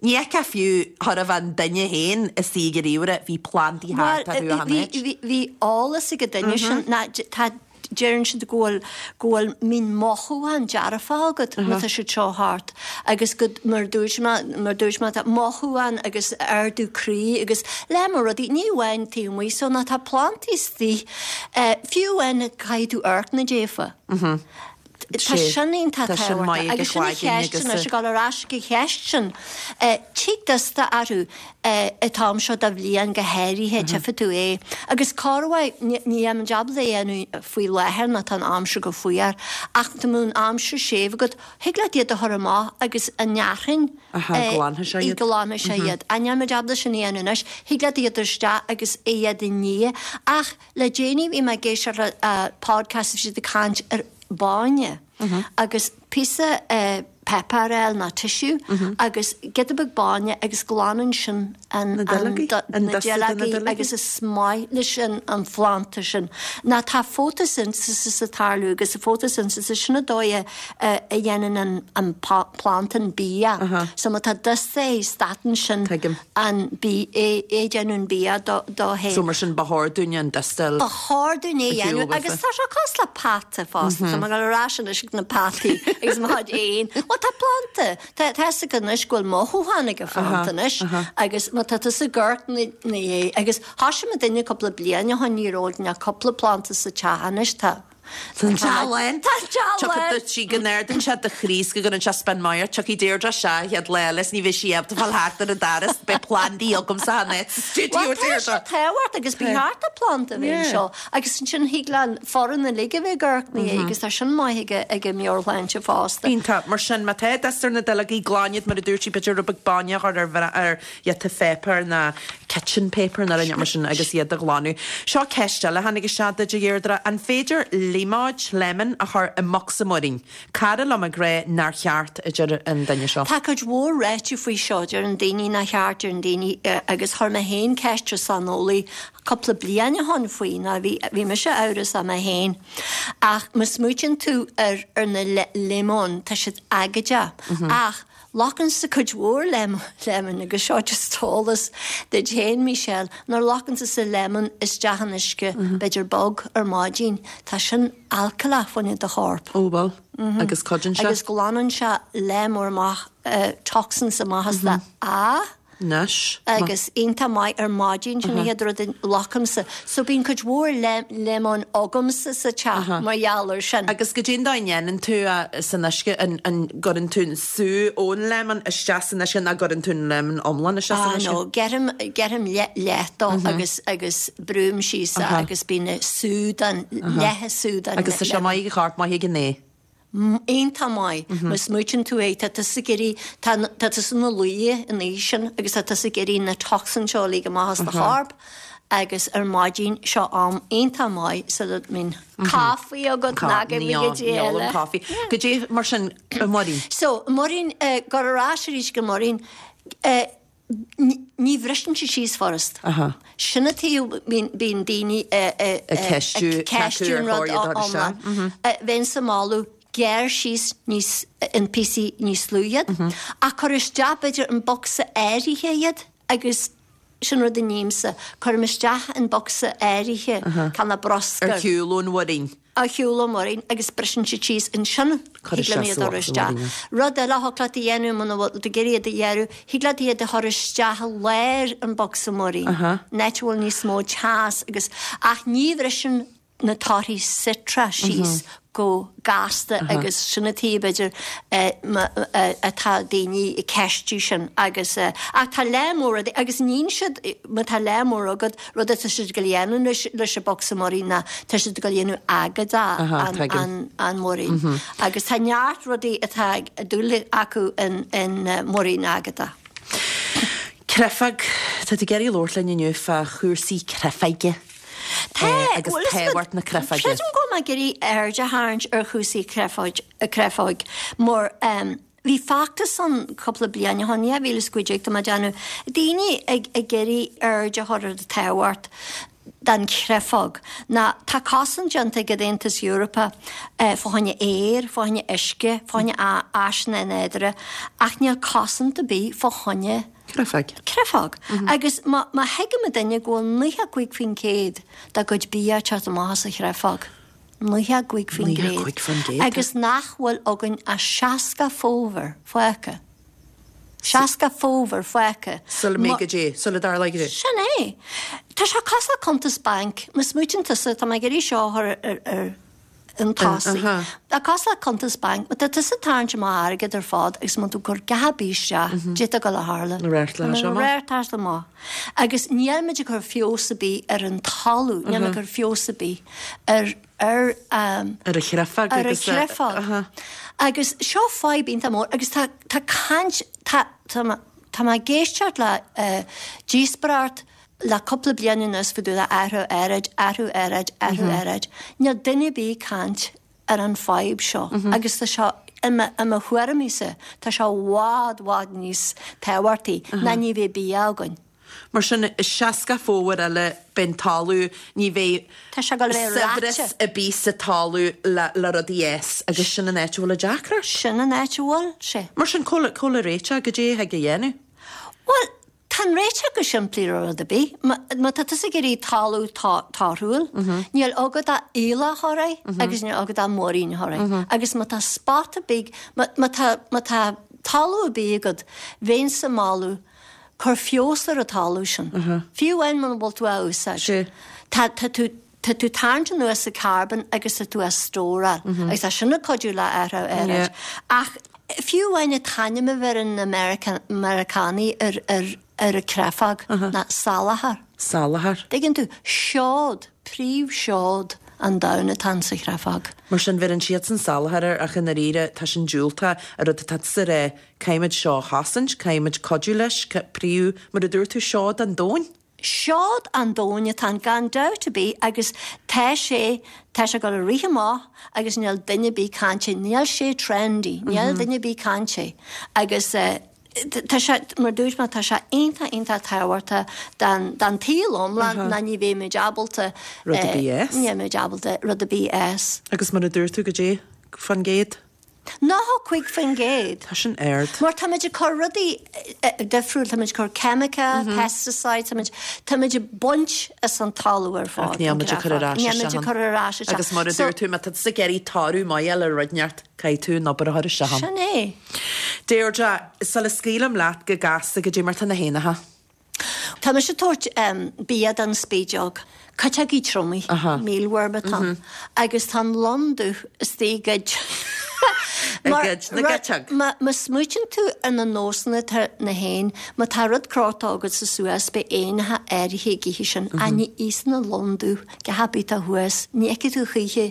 Ní fheicfeá fiú chóir a bheith an duine féin istigh ag an ríomhaire, bhí plandaí thart orthu achan áit. Bhuel, bhí eolas ag an duine sin ná tá, deireann siad go bhfuil, go bhfuil, mbíonn mothúchán dearfach agat má tá siad seo thart agus go, mar a dúirt mé, mar a dúirt mé, tá mothúchán agus ardú croí agus le mo rudaí, ní amháin taobh amuigh so ná tá plandaí istigh, fiú amháin caithfidh tú amharc ina dtaobh. Tá sin iontach tábhachtach agus sin an cheist anois, ag dul ar ais ag an cheist sin, tig dusta orthu an t-am seo de bhliain go háirithe, tchífidh tú é. Agus corruair, ní bheidh muid ábalta é a dhéanamh faoi láthair nó tá an aimsir go fuar, ach dá mbeadh an aimsir séimh agat, thig leat iad a chur amach agus an fhearthainn, glanfaidh sé iad. Ach níl muid ábalta sin a dhéanamh anois, thig leat iad a chur isteach agus iad a ní. Ach Le déanaí bhí mé ag éisteacht le podcast bhí siad ag caint ar bhainne agus píosa páipéar a fháil nó tissue agus giota beag bainne agus glanann sin an na duilleogaí agus is maith leis an phlanda sin. Ná tá photosynthesis ag tarlú agus an photosynthesis sin an dóigh a dhéanann an planda an bia. So má tá dusta air stadann sin an bia, é ag déanamh an bia dó féin. So mar sin ba chóir dúinn an dusta a Ba chóir dúinn é a dhéanamh agus tá sé cosúil le peata fosta, tá mé ag dul ar ais anois ag na peataí agus mo chuid éan. Bhuel tá planda, tá fhios agat anois go bhfuil mothúchán ag an phlanda anois agus má tá tusa ag amharc ina dhiaidh agus thoisigh muid duine cúpla bliain ó shin ní raibh ach cúpla planda sa teach anois tá Tá an teach lán. Tá an teach lán. Tiocfaidh sí go n-ardaíonn sé do chroí is go gcuireann sé spin maith ort. Tiocfaidh Deirdre isteach an chéad lá eile is ní bheidh sí ábalta fáil thart ar an doras. Beidh plandaí agamsa an áit sa stiúideo, Bhuel, tá Deirdre. sé tábhachtach agus ba cheart do phlanda a bheith anseo agus ansin thig le an foireann uilig a bheith ag amharc ina dhiaidh agus tá sin maith ag ag an meabhairshláinte fosta. Iontach. Mar sin, má tá dusta ar na duilleogaí, glan iad mar a dúirt sí, b'fhéidir rud beag bainne a chur ar ar iad pháipéar ná kitchen paper nó rud mar sin agus iad a ghlanadh. Seo ceist eile a tháinig isteach duit, a Dheirdre. An féidir líomóid, lemon, a chur i mbocsa múirín? Cara liom ag rá nár cheart, a deir an duine seo. Tá cuid mhór ráite faoi seo, deireann daoine nár cheart, deireann daoine, agus chuir mé féin ceist ar saineolaí cúpla bliain ó shoin faoi, ná bhí, bhí mise amhrasach mé féin. Ach má smaoitíonn tú ar, ar na líomóin, tá siad aigéadach, ach Locann-sa cuid mhór lemon agus seo just eolas duit féin, Michelle, nuair a locann tusa lemon isteach in uisce, b'fhéidir bog, ar maidin, tá sin alcaileach fá choinne do chorp. Ó bhuel, agus cuidíonn sé? Agus glanann sé lear mór amach, toxins amach as do a. Anois. Agus iontach maith ar maidin, sin an chéad rud a locaimse. So bíonn cuid mhór lemon agamsa sa teach mar gheall ar sin. Agus goidé an dóigh a ndéanann tú é san uisce, an gcuireann tú an sú ón lemon isteach san uisce nó gcuireann tú an lemon iomlán isteach san uisce? Ah no, ghearraim, ghearraim leath dó agus, agus brúim síos é agus bíonn sú den, leath sú den lemon. Agus tá sé maith ag an chorp, maith ag an ae. iontach maith má smaoitíonn tú é, tá tusa ag iarraidh, tá tá tusa ina luí an oíche sin agus tá tusa ag iarraidh na toxins seo a ligean amach as do chorp agus ar maidin seo am iontach maith sula mbíonn caife agat ná go Ní mbíonn ní ólaim caife. Goidé mar sin, a Mháirín. So, muirín, gabh ar ais arís go muirín, Ní bhriseann sé síos furast. Sin an taobh bíonn daoine ag ceistiú an rud iomlán. Bheinnse ag moladh gearr síos níos in píosaí níos lú iad ach cuir isteach b'fhéidir in bocsa áirithe iad agus sin rud a nímse, cuirim isteach in bocsa áirithe canna bruscair. Ar shiúl ón mhuirín. Ar shiúl ón muirín agus briseann siad síos ansin Cuir thig liom isteach iad a chur sa isteach. mhuirín. Rud eile a thig leat a dhéanamh muna bhfuil tú ag iarraidh iad a ghearradh, thig leat iad a chur isteach i lár an bhocsa muirín, an áit a bhfuil níos mó teas agus, ach ní bhriseann na torthaí citreach síos chomh gasta agus sin an taobh b'fhéidir atá daoine ag ceistiú sin agus ach tá lear mór rudaí agus níonn siad má tá lear mór agat rud atá siad ag dul a dhéanamh anois leis an bocsa muirín ná tá siad ag dul a dhéanamh agadach an muirín agus tá neart rudaí atá ag dúil acu in muirín agadach. Créafóg, tá tú ag iarraidh labhairt linn inniu fá chúrsaí créafóige. Tá, agus bhuel, tábhacht na créafóige. Creidim go bhfuil mé ag iarraidh aird a tharraingt ar chúrsaí créafóig mar bhí feachtas ann cúpla bliain ó shin, 2015 tá mé ag déanamh, daoine ag ag iarraidh aird a chur ar an tábhacht den chréafóg. Ná tá cosaint déanta ag an Aontas Eorpach fá choinne aer, fá choinne uisce, fá choinne áiseanna nádúrtha ach níl cosaint ar bith fá choinne Créafóg. Créafóg. Agus má thuigeann duine go bhfuil 95% dá gcuid bia ag teacht amach as an chréafóg, 95%, 95%. agus nach bhfuil againn ach 60 fómhar fágtha, 60 fómhar fágtha. Sula mbeidh goidé, sula dtarlóidh goidé. Sin é. Tá sé cosúil le cuntas bainc, má smaoitíonn tusa, tá mé ag iarraidh seo a chur ar, chun tosaigh. Tá cosúil le cuntas bainc, má tá tusa ag tarraingt amach airgead ar fad agus má tá tú ag cur gach ar bith isteach, goidé atá ag dul a tharlú. Na radharc seo amach. Radharc amach. Agus níl muid ag cur feabhas ar bith ar an talamh, níl muid ag cur feabhas ar bith ar ar ar an chréafóg ar an chréafóg. Agus seo fadhb iontach mór agus tá tá caint tá tá tá mé ag éisteacht le díospóireacht Le cúpla bliain anuas fá dtaobh de athrú aeráid, athrú aeráid, athrú aeráid. Níl duine ar bith ag caint ar an fadhb seo agus tá seo, i mo, i mo thuairimíse, tá sé i bhfad, bhfad níos tábhachtaí ná ní bheidh bia againn. Mar sin, i 60 fómhar eile beidh an talamh, ní bheidh Tá sé ag dul a bheith saibhreas reoite. ar bith sa talamh le, le rudaí a fhás agus sin an áit a bhfuil an deacracht. Sin an áit a bhfuil sé. Mar sin, cá bhfuil, cá bhfuil an réiteach, goidé a thig a dhéanamh? Bhuel, Tá an réiteach go simplí ar rud ar bith. Má tá tusa ag iarraidh talamh torthúil, níl agat ach aoileach a chur air agus níl agat ach muirín a chur air. Agus má tá spota beag, má tá, má tá talamh ar bith agat, bheinnse ag moladh, cuir feabhas ar an talamh sin. Fiú amháin muna bhfuil tú á úsáid. Tá, tá tú, Tá tú ag tarraingt anuas an carbon agus tá tú á stóráil agus tá sin ag cuidiú le athrú aeráid. Ach fiú amháin an t-ainm a bheireann na Meiriceánaigh ar ar ar an créafóg ná salachar. Salachar. Tuigeann tú? Seod, príomhsheod an domhain atá insa chréafóg. Mar sin bheireann siadsan salachar air ach i ndáiríre tá sin diúltach an rud atá tusa a rá, caithfimid seo a chosaint, caithfimid cuidiú leis, príomh, mar a dúirt tú, seod an domhain. Seod an domhain atá ann gan dabht ar bith agus tá sé, tá sé ag dul ag rith amach agus níl duine ar bith ag caint air, níl sé trendy, níl duine ar bith ag caint air agus tá sé, mar dúirt mé, tá sé iontach, iontach tábhachtach don, don tsaol iomlán ná ní bheidh muid ábalta, Rud ar bith a fhás. ní bheidh muid ábalta rud ar bith a fhás. Agus mar a dúirt tú, goidé fán gcéad? 95%. Tá sin ard. Mar táimid ag cur rudaí difriúil, táimid ag cur ceimice, pesticides, táimid, táimid ag baint as an talamh ar fad. Ach níl muid ag cur ar ais Níl muid ag cur ar ais isteach. Agus mar a dúirt tú, má tá tusa ag iarraidh toradh maith a fháil ar rud inteacht, caithfidh tú an obair a chur isteach ann. Sin é. Deirdre, sula scaoilim leat go gasta, goidé mar tá na héanacha. Tá mise ag tabhairt bia don spideog, cuiteogaí triomaigh, mealworm atá ann, agus tá an lon dubh istigh i gcuid I gcuid na gcuiteog. Má smaoitíonn tú ar na nósanna atá na héin, má tá rud crochta agatsa suas, beidh éanacha áirithe ag ithe sin, ach ní íosann an lon dubh gach ar bith atá thuas, ní fheicfidh tú choíche,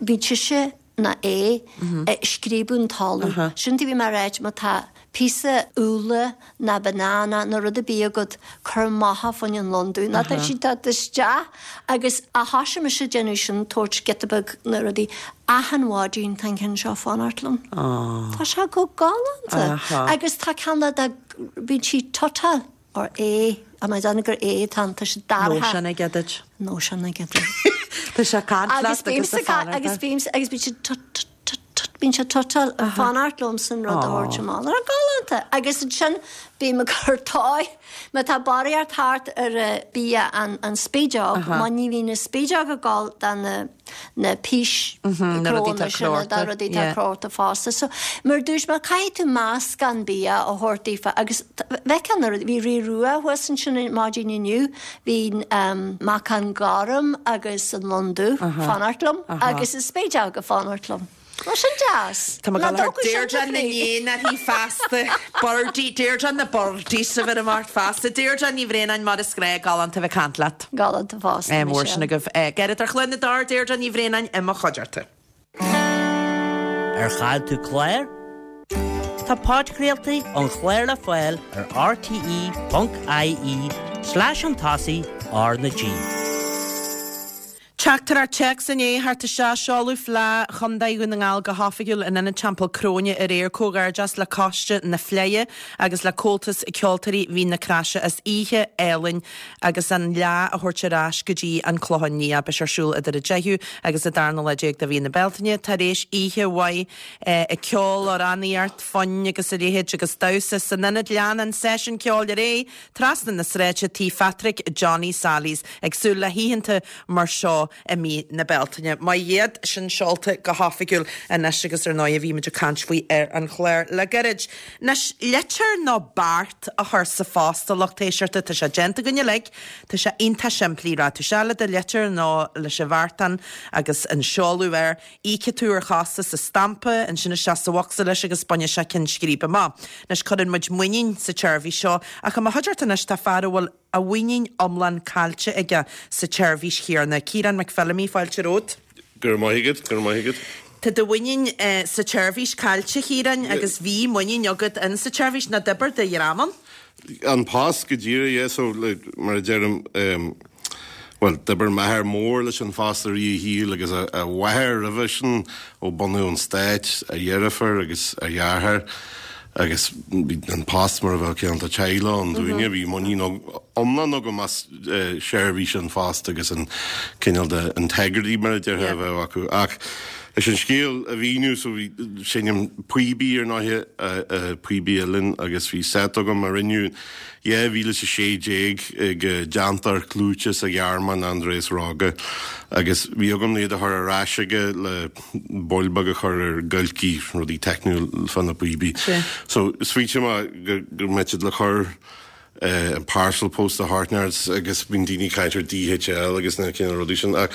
bíonn sise. ná A, ag scríobadh an talamh. Sin a bhí mé a ráit, má tá píosa úlla ná banana nó rud ar bith agat, cuir amach é fá choinne an lon dubh, nó tá siad ag teacht isteach agus ó thoisigh mise ag déanamh sin, tabhairt giota beag na rudaí, achan mhaidin tá an ceann seo ag fanacht liom. Tá sé go galánta. Agus tá ceann de, bíonn sí tutáil. Or A, am I déanamh gur A atá ann, tá sé dorcha. Nóisean aige duit. Nóisean aige duit. Tá sé ag caint leat agus ag fanacht. Agus bímse, agus bíonn sé tut tut tut tut, bíonn sé tutáil ag fanacht liomsa an rud a thabhairt amach. Tá galánta. Agus ansin bím ag cur toy, má tá barraíocht thart ar bia an spideog, má ní bhíonn an spideog ag gabháil do na na pís Na rudaí atá sin, na crochta. rudaí atá crochta fosta. So, mar a dúirt mé, caithfidh tú meascán bia a thabhairt daofa agus bheifeá na rudaí, bhí Rí Rua thuas ansin maidin inniu, bhí Meacan Gorm agus an Lon Dubh fanacht liom agus an Spideog ag fanacht liom. Tá sin deas. Tá mé ag gabháil a chur Deirdre na n-éan uirthi feasta. Birdie, Deirdre na Birdies a bheir amach feasta. Deirdre Ní Bhraonáin, mar is gnách, galánta bheith ag caint leat. Galánta fosta, Mór sin Michelle. agaibh. Gairid ar Chluain na dTor, Deirdre Ní Bhraonáin i mo chuideachta. Ar chaill tú clár? Tá podchraoltaí an chláir le fáil ar rte.ie slash chun tosaigh R na G. Teachtaireacht téacs i ndiaidh theacht isteach, seoladh Fleadh Chontae Dhún na nGall go hoifigiúil in Ionad Teampall Cróine aréir. Comhghairdeas le Coiste na Fleidhe agus le Comhaltas Ceoltóirí Mhín na Craise as oíche álainn agus an fhleadh a thabhairt ar ais go dtí an Clochán Liath. Beidh sé ar siúl idir an 10ú agus an darna lá déag de mhí na Bealtaine. Tar éis oíche mhaith ag ceol, amhránaíocht, foinn agus a leithéid agus damhsa san ionad lean an seisiún ceoil ar aghaidh Trasna na sráide, Tí Phatrick Johnny Sally's, ag súil le hoícheanta mar seo i mí na Bealtaine. Maith iad, sin seolta go hoifigiúil anois agus ar ndóigh bhí muid ag caint faoi ar an chlár le gairid. Anois, litir nó beart a chur sa phost a lucht éisteachta, tá sé déanta againn uilig, tá sé iontach simplí, rachaidh tú isteach le do litir nó leis an bheartán agus an seoladh air, Íocfaidh tú ar chostas an stampa, ansin isteach sa bhocsa leis agus bainfidh sé ceann scríbe amach. Anois, cuireann muid muinín sa tseirbhís seo, ach i mo chuideachta anois tá fear a bhfuil a mhuinín iomlán caillte aige sa tseirbhís chéanna. Ciarán McPhillamy, fáilte romhat. Go raibh maith agat, go raibh maith agat. Tá do mhuinín sa tseirbhís caillte, a Chiaráin, agus bhí muinín agat in sa tseirbhís, nó d'oibir do dhream ann. An Post go díreach, yeah, so like, mar a deirim, em, bhuel, d'oibir m'athair mór leis an phost i rith a shaoil agus a, a mháthair roimhe sin ó bunú an stáit, a dheirfiúr agus a dheartháir agus bhí an post mar a bheadh cineál de teaghlach ann dúinne, bhí muinín iomlán agam as eh, seirbhís an phost agus an cineál de integrity mar a déarfá a bheadh acu ach Leis an scéal a mhíniú, so bhí, seinnim píobaí ar ndóighe, píobaí uilleann agus bhí set agam a rinneadh 2016 ag déantóir clúiteach sa Ghearmáin, Andreas Rogge, agus bhí agam iad a chur ar ais aige le baill beag a chur ar giolcaí, rudaí teicniúil fá na píobaí. So smaointigh mé go go mbeadh siad le cur an parcel post a thabhairt agus bíonn daoine ag caint ar DHL agus na cineál rudaí sin ach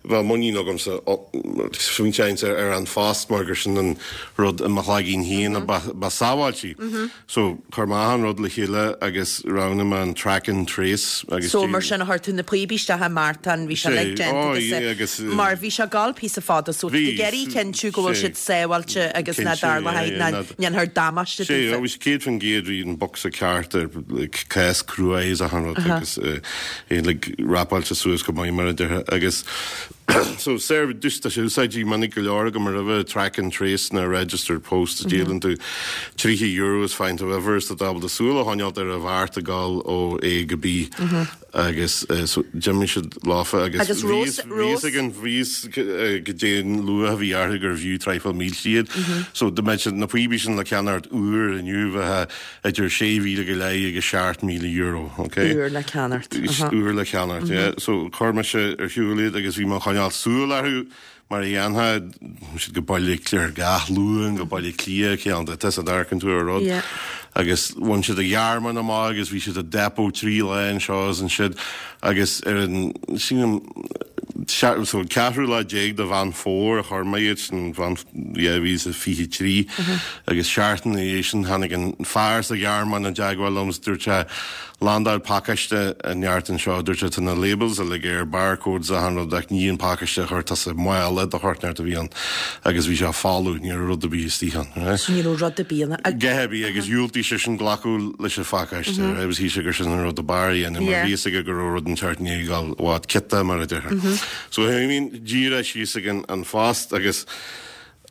bheadh muinín agamsa smaointeoinnse ar an phost mar gur sin an rud i mo chloigeann féin a ba sábháiltí. So chuir mé achan rud le chéile agus roghnaigh mé an track and trace agus So mar sin a chuir tú na píobaí isteach i mbeartán, bhí sé uilig déanta agus mar bhí sé ag gabháil píosa fada so tá tú ag iarraidh cinntiú go bhfuil siad sábháilte agus ná dtarlóidh ná ndéanfar damáiste daofa. Sea, bhí sé 100% bhí an bocsa ceart ar like, cás cruaidh is achan rud agus é like, rapáilte suas go maith mar a déarfá agus so serve just tá sé úsáidte minic go leor agam roimhe track and trace na registered post a díolann tú €30 is faigheann tú uimhir is tá tú ábalta súil a choinneáilt ar an bheart ag gabháil ó A go B. Agus so d'imigh siad leofa agus Agus bhí fhios bhí fhios againn bhí fhios goidé an luach a bhí orthu gurbh fhiú traidhfil mílte iad. So dá mbeadh siad na píobaí sin le ceannacht úr inniu bheadh idir 6,000 go leith agus €7,000, ok? Úr le ceannacht. Úr le ceannacht, yeah. So chuir mise ar shiúl iad agus bhí mé ag coinneáil súil orthu Mar a dhéanfá, bhí siad go Baile Átha Cliath gach Luan, go Baile Átha Cliath, cineál de, tusa a amharcann tú ar rud. Agus bhain siad an Ghearmáin amach agus bhí siad i depot trí lá anseo is ansiúd agus ar an, sílim, so an ceathrú lá déag de Mheán Fómhair a chuir mé iad sin, Mheán, 2023 agus seachtain ina dhiaidh sin tháinig an fear sa Ghearmáin i dteagmháil liom is dúirt sé. Landáil pacáiste inteacht anseo, dúirt sé, tá na labels uilig air, barcodes achan rud ach ní an pacáiste a chuir tusa i mála do short inteacht a bhí ann agus bhí sé folamh, ní raibh rud ar bith istigh ann. Right? So ní raibh rud ar bith ann. A dhath ar bith agus dhiúltaigh seisean glacadh leis an phacáiste, right? Agus shíl sé gur sin an rud ab fhearr a dhéanamh mar bhí fhios aige go raibh rud inteacht i ndiaidh a dhul i bhfad ciotach mar a déarfá. So I mean díreach síos ag an An Phost agus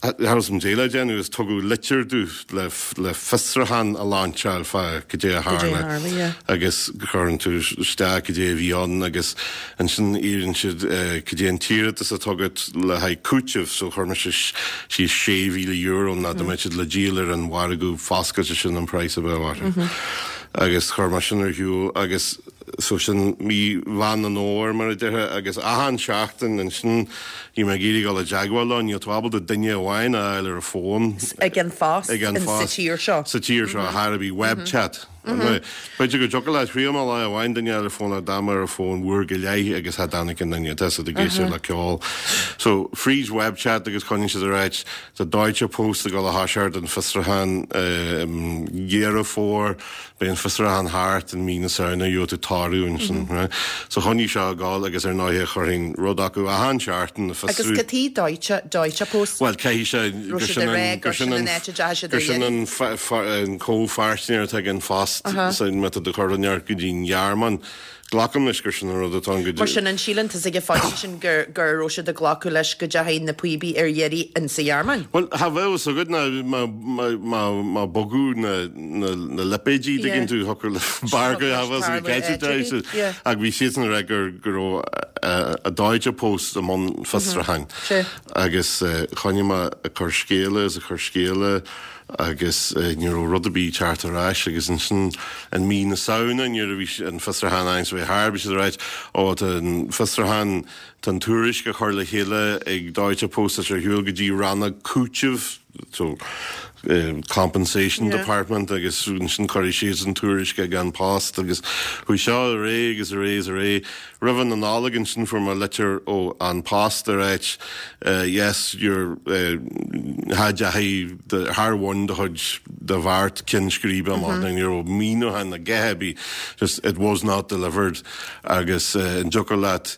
Cha raibh fhios a'm goidé le déanamh agus tugadh litir domh le le fiosrúchán a lainseáil fá cad é a tharla agus cuireann tú isteach cad é a bhí ann agus ansin iarrann siad cad é an t-iarratas atá agat le haghaidh cúitimh so chuir mise síos €6,000 nó dá mbeadh siad le díol ar an mhargadh foscailte sin an praghas a bheadh orthu agus chuir mé sin ar shiúl agus So sin mí Mheán an Fhómhair mar a déarfá agus achan seachtain ansin bhí mé ag iarraidh dul i dteagmháil leo, níl tú ábalta duine amháin a fháil ar an bhfón. Ag an Phost Ag an sa Phost tír seo. Sa tír seo, thar a bith, web chat. B'fhéidir go dtiocfadh leat, thriail mé lá amháin duine a fháil ar an bhfón ach d'fhan mé ar an bhfón uair go leith agus cha dtáinig aon duine, tá siad ag éisteacht le ceol. So fríd web chat agus choinnigh siad ag ráit, tá Deutsche Post ag dul a thoiseacht an fiosrúchán i Dheireadh Fómhair, Beidh an fiosrúchán thart i mí na Samhna, gheobhaidh tú toradh ansin, right? So choinnigh seo ag gabháil agus ar ndóighe chuirfinn rud acu achan seachtain ag Agus fiosrú. cad chuige Deutsche, Deutsche Post? Bhuel, caithfidh sé Raibh gur siad sin ag rá an, gur gur sin sin an an, áit a dteachaigh siad gur ar sin iarraidh. an f-f-an comhpháirtnéir atá ag An Phost, Aha. so má tá tú ag cur rud inteacht go dtí an Ghearmáin. Glacaim leis gur sin an rud atá ann go Mar sin, an síleann tusa ag an phointe sin gur go raibh siad ag glacadh leis go dteachaigh na píobaí ar iarraidh insa Ghearmáin? Bhuel, cha bheadh fhios agat ná má, má, má, má bogadh na, na, na lipéidí, Yeah. dtuigeann tú, thiocfadh le barr go, cha bheadh fhios agat Tarlú cé áit ar bith. Yeah. Ach bhí siadsan ag rá gur, go raibh a Deutsche Post i mbun fiosrúcháin. Sea. Agus choinnigh mé ag cur scéala is ag cur scéala agus ní raibh rud ar bith ag teacht ar ais agus ansin in mí na Samhna nuair a bhí an fiosrúchán ann so bhí thar bhí siad ag ráit ó tá an fiosrúchán tá an tuairisc á chur le chéile ag Deutsche Post tá sé ar shiúl go dtí rannóg cúitimh so compensation Yeah. department agus ansin cuirfidh siad an tuairisc ag An Post agus chuaigh seo ar aghaidh agus ar aghaidh is ar aghaidh. Roimh na Nollag ansin fuair mé litir ó An Post ag ráit yes your cha dteachaigh do char bhain do chuid do bheart ceann scríbe amach mm-hmm. ní raibh míniúchán a dhath ar bith just it was not delivered agus an dtiocfadh leat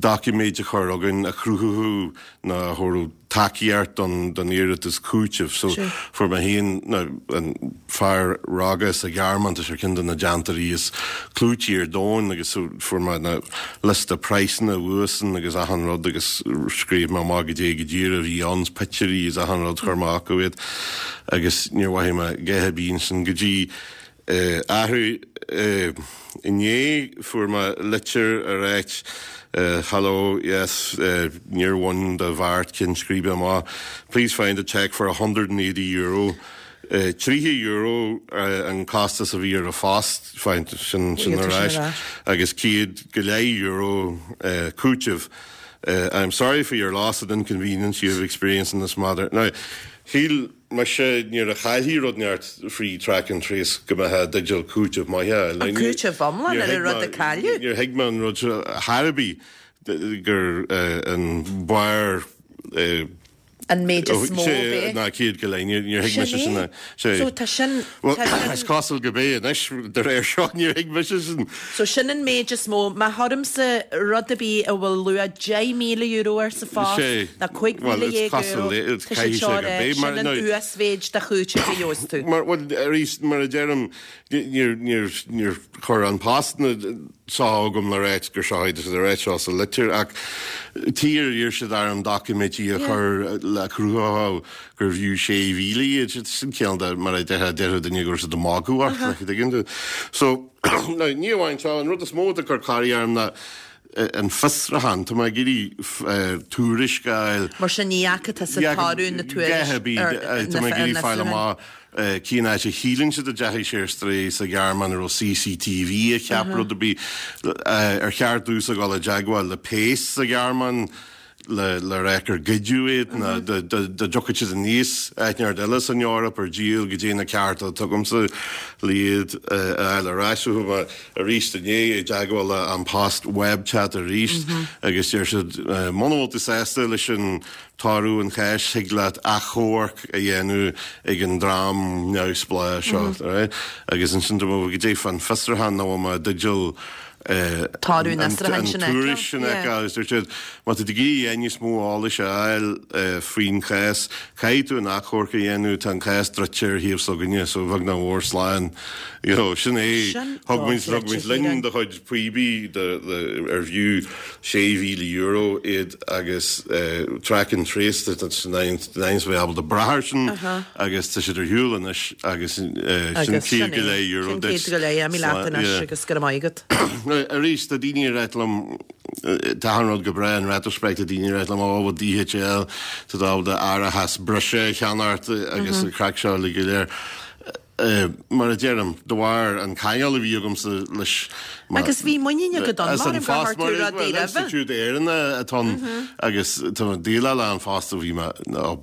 doiciméid a chur chugainn a chruthódh nó a thabharfadh tacaíocht don don iarratas cúitimh. So fuair mé féin nó an fear rogha sa Ghearmáin, tá sé ar cheann de na déantóirí is clúití ar domhan agus so fuair mé na liosta praghsanna uaidhsean agus achan rud agus scríobh mé amach goidé go díreach a bhí ann, pictiúirí is achan rud chuir mé acu iad agus níor mhothaigh mé a dhath ar bith ansin go dtí Athrú inné fuair mé litir ag ráit Hello, yes, níor bhain do bheart ceann scríbe amach. Please find a cheque for €180. €30 an costas a bhí ar an phost, find sin sin ar ais, agus céad go leith euro cúiteamh. I'm sorry for your loss and inconvenience you have experienced in this matter. Now, shíl Mise, nuair a chaillfí rud inteacht frí track and trace go mbeifeá i dteideal cúiteamh maith a fháil. An cúiteamh iomlán ar an rud a cailleadh? Níor thuig mé an rud seo chor ar bith gur an barr An méid is mó a bheadh. Ná 100 go leith, níor thuig mise sin. Sin é. So tá sin. Bhuel, is cosúil go b'é anois, de réir seo, níor thuig mise sin. So sin an méid is mó. Má chuirimse rud ar bith a bhfuil luach €10,000 air sa phost, ná €15,000, tá siad seo ag rá, sin an uasmhéid de chúiteamh a gheobhas tú. Mar, bhuel, arís, mar a deirim, níor, níor, níor chuir An Post na seo chugam le ráit gur seo iad, a ráit seo sa litir, ach tír iarr siad orm doiciméidí a chur le cruthódh gurbh fhiú 6,000 iad, sin cineál de, mar a déarfá, déarfadh duine go raibh siad ag magadh ort, like, an dtuigeann tú? So, now, ní amháin seo, an rud is mó atá ag cur corraí orm ná an fiosrúchán, tá mé ag iarraidh tuairisc a fháil. Mar sin ní fhaca tusa toradh na tuairisc ar na Tá mé ag iarraidh fáil amach cén áit a shíleann siad a dteachaigh sé ar strae sa Ghearmáin, an raibh CCTV a cheap rud ar bith, ar cheart domhsa dul i dteagmháil le péas sa Ghearmáin. le le rá gur goideadh iad ná dá dtiocfadh siad aníos áit inteacht eile san Eoraip ar díol goidé na cearta atá agamsa le iad a fháil ar ais. So chuaigh mé arís inné i dteagmháil le An Post web chat arís agus deir siad muna bhfuil tú sásta leis an toradh an cháis thig leat achomharc a dhéanamh ag an dream neamhspleách seo right? Agus ansin dúirt mé goidé fán fiosrúchán nach bhfuil mé i dteideal Toradh an fhiosrúcháin sin a an tuairisc sin a fheiceáil agus dúirt siad má tá tú ag iarraidh níos mó eolais a fháil faoin chás caithfidh tú an achomharc a dhéanamh tá an cás druidte ar thaobh s'againne so bheag nach mhór slán you know sin é thug muid thug muid linn do chuid píobaí ar bhfiú €6,000 iad agus track and trace tá bheith ábalta brath air sin agus tá siad ar shiúl anois agus sin €100 duit. Sin €100, imigh leat anois agus go raibh maith agat. Arís, tá daoine ag ráit liom, tá achan rud go breá in retrospect, tá daoine ag ráit liom, ó bhuel DHL, tá tú ábalta árachas breise a cheannacht agus an craic seo uilig go léir. Mar a deirim, de bharr an ceangal a bhí agamsa leis mar. Agus bhí muinín agat ann, mar gur chuir tú rudaí roimhe. Institiúid Éireannach atá ann agus tá mé ag déileáil le An Post ó bhí mé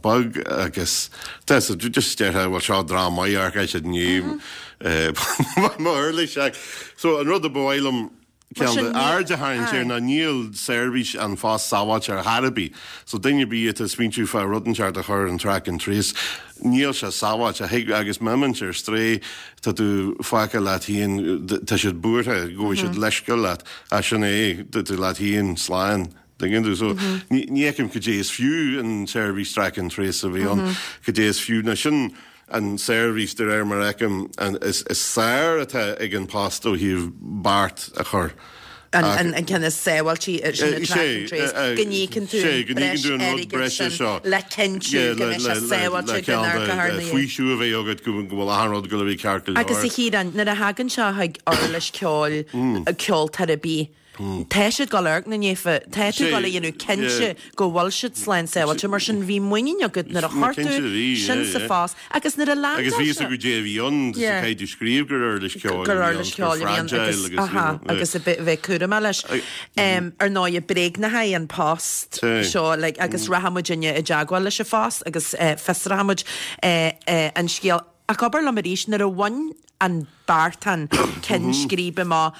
beag agus tá so just déarfá bhuel seo dream maith amharc siad i ndiaidh mo uirlis ach so an rud a ba mhaith liom Ceann de aird a tharraingt air ná níl seirbhís An Phost sábháilte ar chor ar bith. So duine ar bith atá ag smaointiú fá rud inteacht a chur ar an track and trace, níl sé sábháilte. Thig, agus má imíonn sé ar strae, tá tú fágtha leat féin, tá siad buartha go bhfaighidh siad leithscéal leat. Ach sin é, tá tú leat féin, slán. Tuigeann tú? So ní fheicim cad é is fiú an tseirbhís track and trace a bheith ann, cad é is fiú. Ná sin an tseirbhís, de réir mar a fheicim, is fearr atá ag An Post ó thaobh beart a chur. An ceann is sábháilte sin an track and trace, go n-íocann tú an breis airgid sin le cinntiú go mbeidh sé sábháilte go n-amharcfar ina dhiaidh. Faoiseamh a bheith agat go bhfuil achan rud ag dul a bheith ceart go leor. Agus a Chiaráin, nuair a thagann sé chuig uirlis ceoil, ceoltóir ar bith, Tá siad ag dul amharc ina ndiaidh, tá tú ag dul a dhéanamh cinnte go bhfuil siad slán sábháilte, mar sin bhí muinín agat nuair a chuir tú sin sa phost agus nuair a leandáil sé. Agus bhí fhios agat goidé a bhí ann, caithfidh tú scríobh gur uirlis ceoil a bhí ann, gur fragile agus aha, agus a bheith cúramach leis. Ar ndóigh, bréagnaithe an post seo like agus rachaidh muidinne i dteagmháil leis an phost agus fiosróidh muid an scéal. Ach abair liom arís, nuair a bhain an beartán ceann scríbe amach,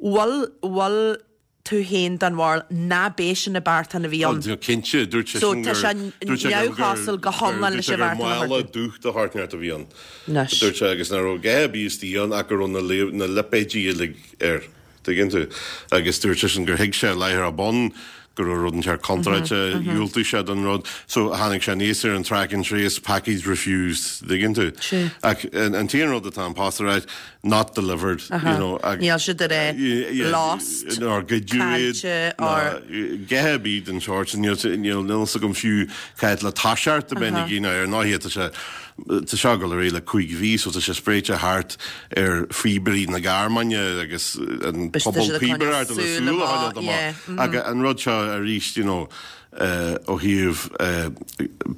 bhfuil, bhfuil tú féin den bharúil ná b'é sin an beartán a bhí ann? Ó, cinnte, dúirt sé So sin tá gur, sé dúirt sé gur, neamhchosúil go hiomlán leis an bheartán a chuir tú. Mála dubh de shórt inteacht a bhí ann. Anois. Dúirt sé, agus nach raibh a dhath ar bith istigh ann ach go raibh na, na lipéidí uilig air. Tuigeann tú? Agus dúirt seisean gur thuig sé láithreach bonn go raibh rud inteacht contráilte, dhiúltaigh sé don rud. So tháinig sé aníos ar an track and trace, package refused, tuigeann tú? Ach an t-aon rud atá An Post a ráit, not delivered, you know. Níl siad ag rá lost, nár goideadh iad, ná a dhath ar bith den sórt sin. Níl níl fhios agam fiú cá fhad le toiseacht a bheinn ag déanamh ar ndóigh tá sé Tá seo ag dul ar aghaidh le 5 mhí so tá sé spréite thart ar phíobairí na Gearmáine agus an pobal píobaireachta le súil a choinneáil amach. Ach an rud seo arís, you know, ó thaobh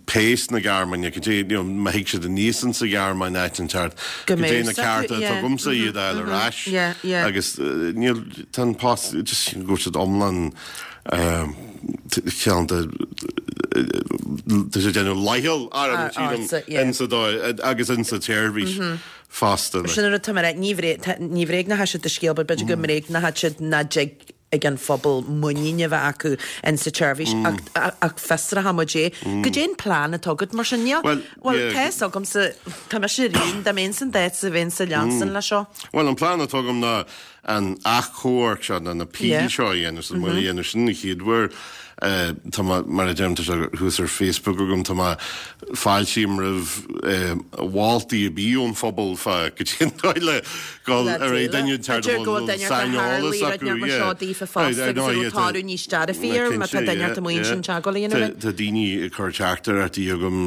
péas na Gearmáine, cad é, you know, má thig siad aníos insa Ghearmáin áit inteacht, cad é na cearta atá agamsa iad a fháil ar ais agus níl, tá an post, just go bhfuil siad iomlán ceann de tá sé ag déanamh leithcheal orm sílim insa dóigh agus insa tseirbhís fosta. Sin an rud atá mé a rá, ní bhréagnóidh siad do scéal but b'fhéidir go mbréagnóidh siad nach dtig ag an phobal muinín a bheith acu insa tseirbhís ach fiosróidh muid é. Goidé an plean atá agat mar sin? Níl, bhuel tá fhios agamsa, tá mise ar aon, dá mbeinn san d'áit bheinnse ag leanstan leis seo. Bhuel an plean atá agam ná an achomharc seo, nó an appeal seo a dhéanamh, so mé a dhéanamh sin an chéad uair. Tá mé, mar a deirim, tá sé thuas ar Facebook agam, tá mé, fáiltím roimh mholtaí ar bith ón phobal fá goidé an dóigh le dul ar aghaidh duine inteacht a bhfuil saineolas acu, yeah. Seo daofa fosta agus a raibh toradh níos dearfaí air má tá duine ort amuigh ansin teagmháil a dhéanamh linn. Tá daoine ag cur teachtaireachtaí chugam,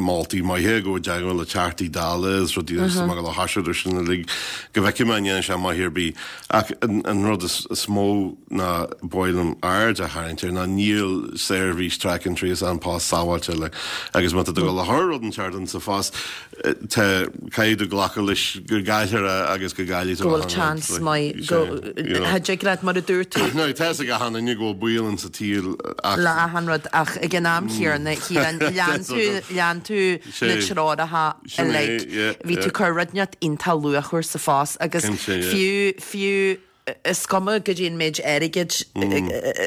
moltaí maithe, gabh i dteagmháil le Teachtaí Dála is rudaí agus tá mé ag dul a thoiseacht ar sin uilig. Go bhfeicfidh mé an ndéanfaidh sé maith ar bith. Ach an rud is mó ná ba mhaith liom aird a tharraingt air ná níl seirbhís track and trace An Post sábháilte like agus má tá tú ag dul a chur rud inteacht in sa phost tá caithfidh tú glacadh leis go gcaillfear é agus go gcaillfidh tú Go bhfuil chance maith go Cha dtig leat mar a dúirt tú. Now tá fhios ag achan duine go bhfuil baol in sa tsaol ach. Le achan rud ach ag an am chéanna Chiaráin lean tú lean tú na treoracha uilig. Bhí tú ag cur rud inteacht iontach luachmhar sa phost agus fiú, fiú, is cuma goidé an méid airgid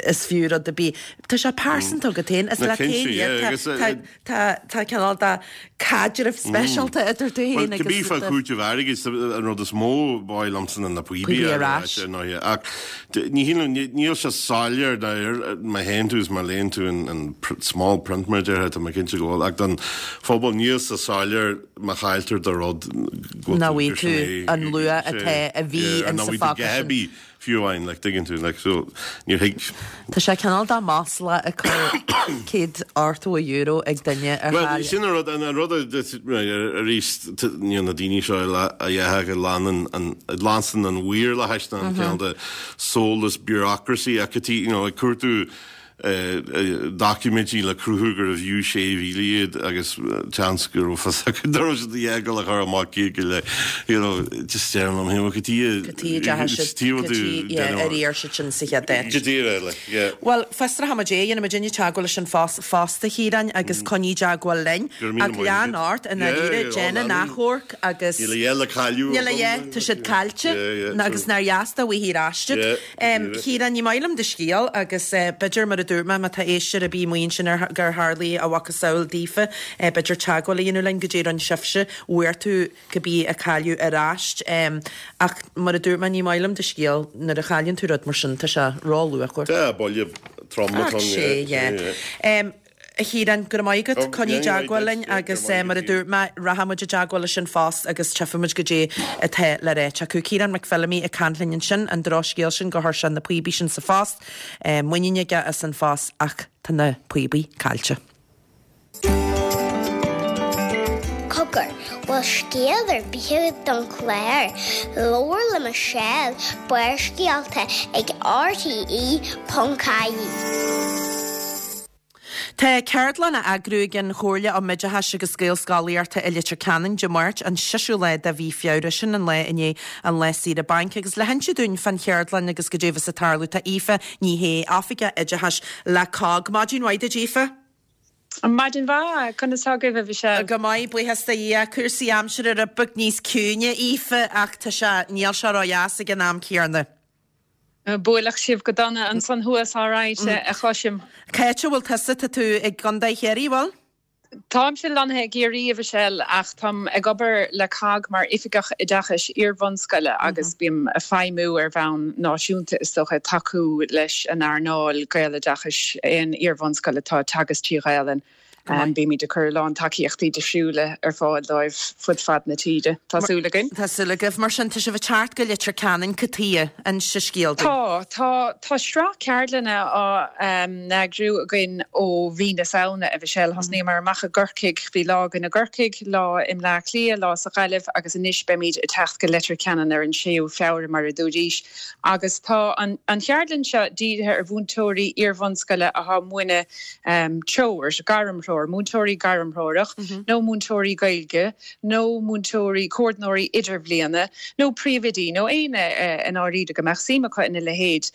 is fiú rud ar bith, tá sé pearsanta agat féin, is leat féin iad, tá, tá, tá cineál de caidreamh speisialta idir tú féin agus. Cibé fá chúiteamh airgid, an rud is mó ba mhaith liomsa ná na píobaí ar ais. Ach ní shílim, níl sé soiléir má théann tú is má léann tú an small print mar a déarfá, tá mé cinnte go bhfuil, ach don phobal níl sé soiléir má chailltear do rud go bhfuil tú, gur sin é, an luach atá a bhí in sa phóca sin. Fiú amháin, like, tuigeann tú, like, so, níor thuig. Tá sé cineál de masla ag cur €180 ag duine ar Bhuel, chaill. sin an rud, an rud a, arís, níl na daoine seo a dhéarfadh a leanann an, a leanstan an mhaorlathais ná an cineál de soulless bureaucracy ach you know, ag cuartú doiciméidí le cruthú gurbh fhiú 6,000 iad agus seans go raibh fios acu nach raibh siad a dhath ag dul a chur amach céad go leith you know just deirim liom féin cad chuige Cad chuige a dteachaigh siad cad chuige yeah ar iarr siad sin sa chéad áit. Go díreach like yeah. Bhuel fiosróidh muid é, dhéanfaidh muidinne teagmháil leis an Phost fosta Chiaráin agus coinnigh i dteagmháil linn. Go raibh míle Ach maith lean agat. ort i ndáiríre, Yeah yeah déan an achomharc agus Níl a dhath le cailleadh Níl a agam. dhath, tá siad caillte Yeah yeah agus nár dheas dá bhfaighfí ar ais iad. Yeah. Chiaráin, ní maith liom do scéal agus b'fhéidir, mar a dúirt mé, má tá éisteoir ar bith amuigh ansin ar gur tharlaigh a mhacasamhail daofa, b'fhéidir teagmháil a dhéanamh linn goidé a rinne sibhse, bhfuair tú cibé a cailleadh ar ais. Ach mar a dúirt mé, ní maith liom do scéal, nuair a chailleann tú rud mar sin, tá sé ró-luachmhar. Tá, buille trom atá ann, yeah. Ach sé, yeah. A Chiaráin, go raibh maith agat. Coinnigh i dteagmháil linn agus mar a dúirt mé, rachaidh muid i dteagmháil leis An Phost agus tchífidh muid goidé atá le ráit acu. Ciarán McPhillamy ag caint linn ansin, an drochscéal sin gur chuir sé na píobaí sin sa phost. Muinín aige as An Phost ach tá na píobaí caillte. Cogar, bhfuil scéal ar bith agat don chlár? Labhair le Michelle, Barrscéalta ag RTE.ie. Tá ceardlann á eagrú ag an Chomhairle um Oideachais agus Gaelscolaíochta i Leitir Ceanainn Dé Máirt, an seisiú lá de mhí Feabhra, sin an lá i ndiaidh an lá saoire bainc. Agus le hinse dúinn fán cheardlann agus goidé a bheas ag tarlú tá Aoife Ní Shé, Oifigeach Oideachais le COGG. Maidin mhaith duit Aoife. Maidin mhaith, conas tá agaibh a Mhichelle? Go maith, buíochas do Dhia. Cúrsaí aimsire rud beag níos ciúine, Aoife, ach tá sé, níl sé ró-dheas ag an am céanna. Buaileadh sibh go dona ansan thuas, alright, a chloisim. Cá háit a bhfuil tusa? Tá tú i gContae Chiarraí, bhfuil? Táimse lonnaithe i gCiarraí, a Mhichelle, ach táim ag obair le cogg mar Oifigeach Oideachais Iar-bhunscoile agus bím ag feidhmiú ar bhonn náisiúnta, is dócha, ag tacú leis an earnáil Gaeloideachais, aon iar-bhunscoil atá ag teagasc trí Ghaelainn. Bímid ag cur a lán tacaíochtaí difriúla ar fáil dóibh fud fad na tíre. Tá súil againn. Tá súil agaibh. Mar sin, tá sibh ag teacht go Leitir Ceanainn, cad chuige? Inis an scéal dúinn. Tá. Tá. Tá sraith ceardlanna á n-eagrú againn ó mhí na Samhna, a Mhichelle. Thosnaíomar amach i gCorcaigh. Bhí lá againn i gCorcaigh, lá i mBleá Cliath, lá sa Ghaillimh agus anois beimid ag teacht go Leitir Ceanainn ar an 6ú Feabhra, mar a dúraís. Agus tá an cheardlann seo dírithe ar mhúinteoirí iar-bhunscoile atá ag múineadh treoir, gairmthreoir, múinteoirí gairmthreorach nó múinteoirí Gaeilge nó múinteoirí, comhordnóirí idirbhliana nó príomhoidí nó éinne i ndáiríre go mbeadh suim acu ina leithéid.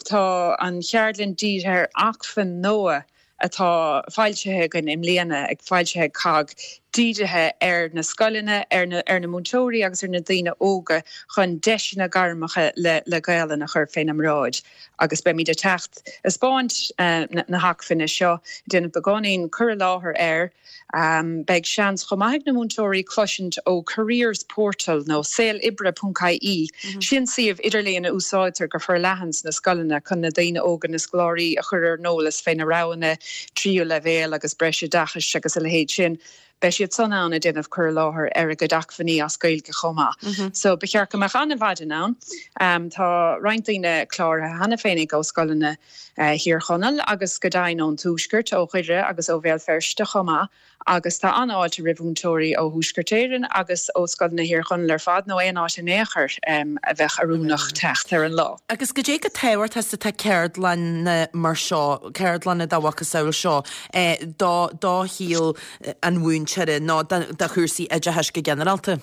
Tá an cheardlann dírithe ar acmhainn nua atá foilsithe againn i mbliana, ag foilsithe ag cogg, dírithe ar na scoileanna, ar na ar na múinteoirí agus ar na daoine óga chun deiseanna gairmeacha le le Gaelainn a chur féna mbráid. Agus beimid ag teacht ag 'spáint na hacmhainne seo, ag déanamh beagáinín cur i láthair air. Beidh seans chomh maith ag na múinteoirí cloisint ó Careers Portal nó saoloibre.ie. Sin suíomh idirlíon a úsáidtear go forleathan sna scoileanna chun na daoine óga, na scoláirí, a chur ar an eolas fé na roghanna tríú leibhéal agus breisoideachais agus a leithéid sin. Beidh siad san ann ag déanamh cur i láthair ar a gcuid acmhainní as Gaeilge chomh maith. So ba cheart go mbeadh an-mhaidin ann. Tá roinnt daoine cláraithe cheana féinig ó scoileanna Thír Chonaill agus go deimhin ón Tuaisceart, ó Dhoire agus ó Bhéal Feirste chomh maith. Agus tá an-fháilte roimh mhúinteoirí ó Thuaisceart Éireann agus ó scoileanna Thír Chonaill ar fad, nó aon áit in aon chor a bheadh oiriúnach teacht ar an lá. Agus goidé chomh tábhachtach is atá ceardlanna mar seo, ceardlanna dá mhacasamhail seo, do do shaol an mhúinteora nó do chúrsaí oideachais go ginearálta?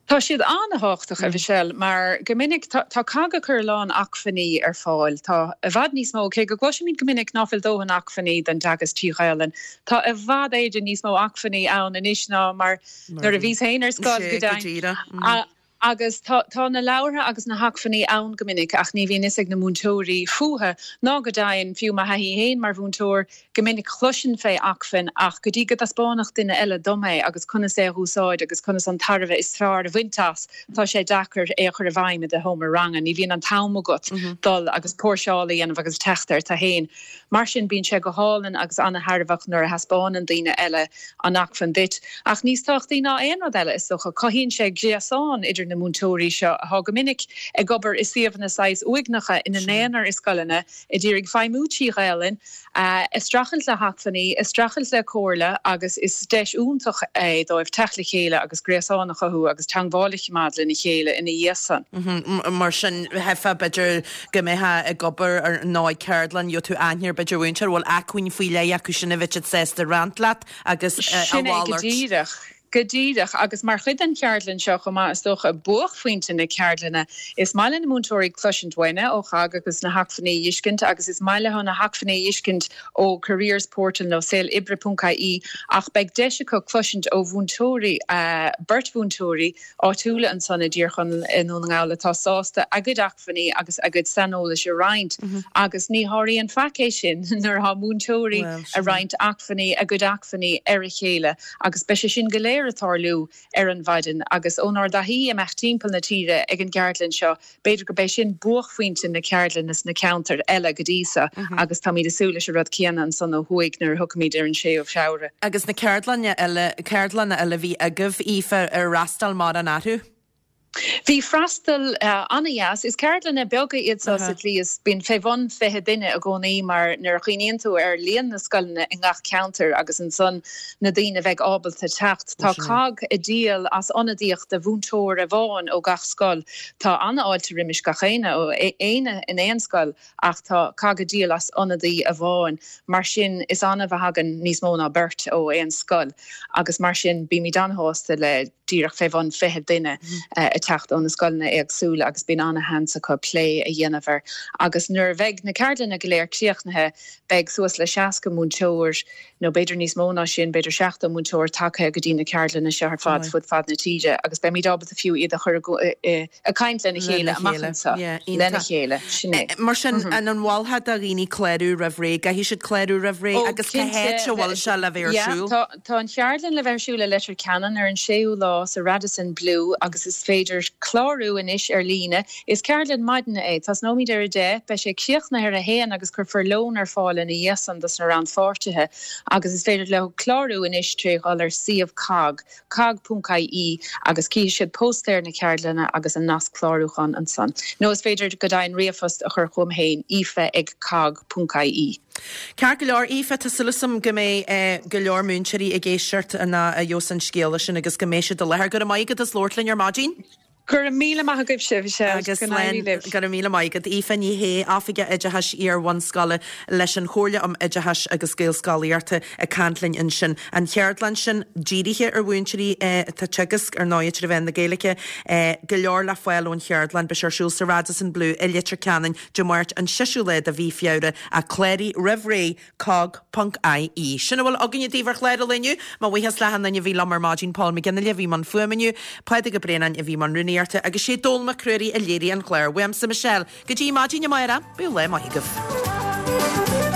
Tá siad an-thábhachtach, a Mhichelle, mar go minic tá tá cogg ag cur a lán acmhainní ar fáil. Tá i bhfad níos mó, cé go gcloisimid go minic ná fuil dóthain acmhainní don dteagasc trí Ghaelainn, tá i bhfad Éireann níos mó acmhainní ann anois ná mar nuair a bhíos féin ar scoil, go deimhin. Agus tá tá na leabhartha agus na hacmhainní ann go minic ach ní bhíonn fhios ag na múinteoirí fúthu ná go deimhin, fiú mo thaithí féin mar mhúinteoir, Go minic chloisinn fé acmhainn ach go dtí go dtaispeánfadh duine eile dom é agus conas é a dh'úsáid agus conas an tairbhe is fearr a bhaint as, tá sé deacair é a chur i bhfeidhm i do sheomra ranga. Ní bhíonn an t-am agat dul agus póirseáil a dhéanamh agus teacht air tú fhéin. Mar sin bíonn sé go hálainn agus ana-thairbheach nuair a thaispeánann daoine eile an acmhainn duit. Ach níos tábhachtaí ná aon rud eile, is dócha, cothaíonn sé gréasán idir na múinteoirí seo atá go minic ag obair i suíomhanna saghas uaigneacha ina n-aonar i scoileanna, ag iarraidh feidhmiú trí Ghaelainn, ag streachailt le hacmhainní, ag streachailt le comhairle agus is deis iontach é dóibh teacht le chéile agus gréasán a chothú agus teangmháil a choimeád lena chéile ina dhiaidh san. Mar sin, theifeá b'fhéidir go mbeifeá ag obair ar nó ag ceardlann, gheobhaidh tú aithne ar b'fhéidir mhúinteoir a bhfuil acmhainn faoi leith acu sin a bheadh siad sásta roinnt leat agus a Sin é go mhalairt. díreach. Go díreach, agus mar chuid den cheardlann seo chomh maith, is dócha, buaicphointe na ceardlainne, is maith le na múinteoirí cloisint uainne ó COGG agus na hacmhainní a dh'fheiscint agus is maith leo na hacmhainní a dh'fheiscint ó Careers Portal nó saoloibre.ie ach beidh deis acu cloisint ó mhúinteoirí, beirt mhúinteoirí áitiúla ansan i dTír Chonaill i nDún na nGall atá sásta a gcuid acmhainní agus a gcuid saineolais a roinnt agus ní sháraíonn faic é sin nuair atá múinteoirí ag roinnt acmhainní, a gcuid acmhainní ar a chéile agus beidh sé sin go léir ag tarlú ar an mhaidin agus ónár dtaithí imeacht timpeall na tíre ag an gceardlann seo B'fhéidir gurb é sin buaicphointe na ceardlainne sna ceantair eile go dtí so agus táimid ag súil leis an rud céanna ansan ó thuaidh nuair a thiocfaimid ar an 6ú Feabhra. Agus na ceardlanna eile, ceardlanna eile a bhí agaibh, Aoife, ar fhreastail mórán orthu? Bhí freastal an-dheas. Is ceardlanna beaga iad so sa tslí is bíonn fé bhun 20 duine i gcónaí mar nuair a chuimhníonn tú ar líon na scoileanna i ngach ceantar agus ansan na daoine a bheidh ábalta teacht. Tá cogg ag díol as ionadaíocht de mhúinteoir amháin ó gach scoil. Tá an-fháilte roimis gach éinne ó éinne in aon scoil ach tá cogg ag díol as ionadaí amháin. Mar sin is annamh a thagann níos mó ná beirt ó aon scoil agus mar sin bímid an-shásta le díreach fé bhun 20 duine ag teacht ó na scoileanna éagsúla agus bíonn an-sheans acu plé a dhéanamh air. Agus nuair a bheidh na ceardlanna go léir críochnaithe beidh suas le 60 múinteoir nó b'fhéidir níos mó ná sin, b'fhéidir 70 múinteoir tagtha go dtí na ceardlanna seo ar fad fud fad na tíre agus beimid ábalta fiú iad a chur ag caint lena chéile amach anseo, lena chéile, sin é. Mar sin, an an mholfá do dhaoine clárú roimh ré? Caithfidh siad clárú roimh ré agus cá háit a bhfuil sé le bheith ar siúl? Tá an cheardlann le bheith ar siúl i Leitir Ceanainn ar an 6ú lá sa Radisson Blu agus is féidir clárú anois ar líne. Is ceardlann maidine é. Tosnóimid ar a 10, beidh sé críochnaithe ar a haon agus cuirfear lón ar fáil ina dhiaidh san dos na rannpháirtithe agus is féidir leo clárú anois tré dhul ar suíomh cogg, cogg.ie agus cífidh siad póstaer na ceardlainne agus an nasc clárúcháin ansan. Nó is féidir go deimhin ríomhphost a chur chugam féin, aoife ag cogg.ie. Ceart go leor, Aoife, tá súil agam go mbeidh go leor múinteoirí ag éisteacht ná a gheobhas an scéala sin agus go mbeidh siad i láthair. Go raibh maith agat as labhairt linn ar maidin. Go raibh míle maith agaibhse, Michelle. Agus Go n-éirí libh. Go raibh míle maith agat. Aoife Ní Shé, Oifigeach Oideachais Iar-bhunscoile leis an Chomhairle um Oideachais agus Gaelscolaíochta ag caint linn ansin. An cheardlann sin dírithe ar mhúinteoirí atá ag teagasc ar ndóigh trí mheán na Gaeilge. Go leor le fáil ón cheardlann. Beidh sé ar siúl sa Radisson Blu i Leitir Ceanainn Dé Máirt an 6ú lá de mhí Feabhra ach cláraigh roimh ré cogg ponc ie. Sin a bhfuil againne daoibh ar chlár an lae inniu. Mo bhuíochas le achan duine a bhí liom ar maidin, Paul McGinley a bhí i mbun fuaime inniu, Pádraig Ó Braonáin a bhí i mbun rúnaíochta agus sé Dónall Mac Ruairí a léirigh an clár. Uaimse Michelle, go dtí maidin amárach, bíodh lá maith agaibh.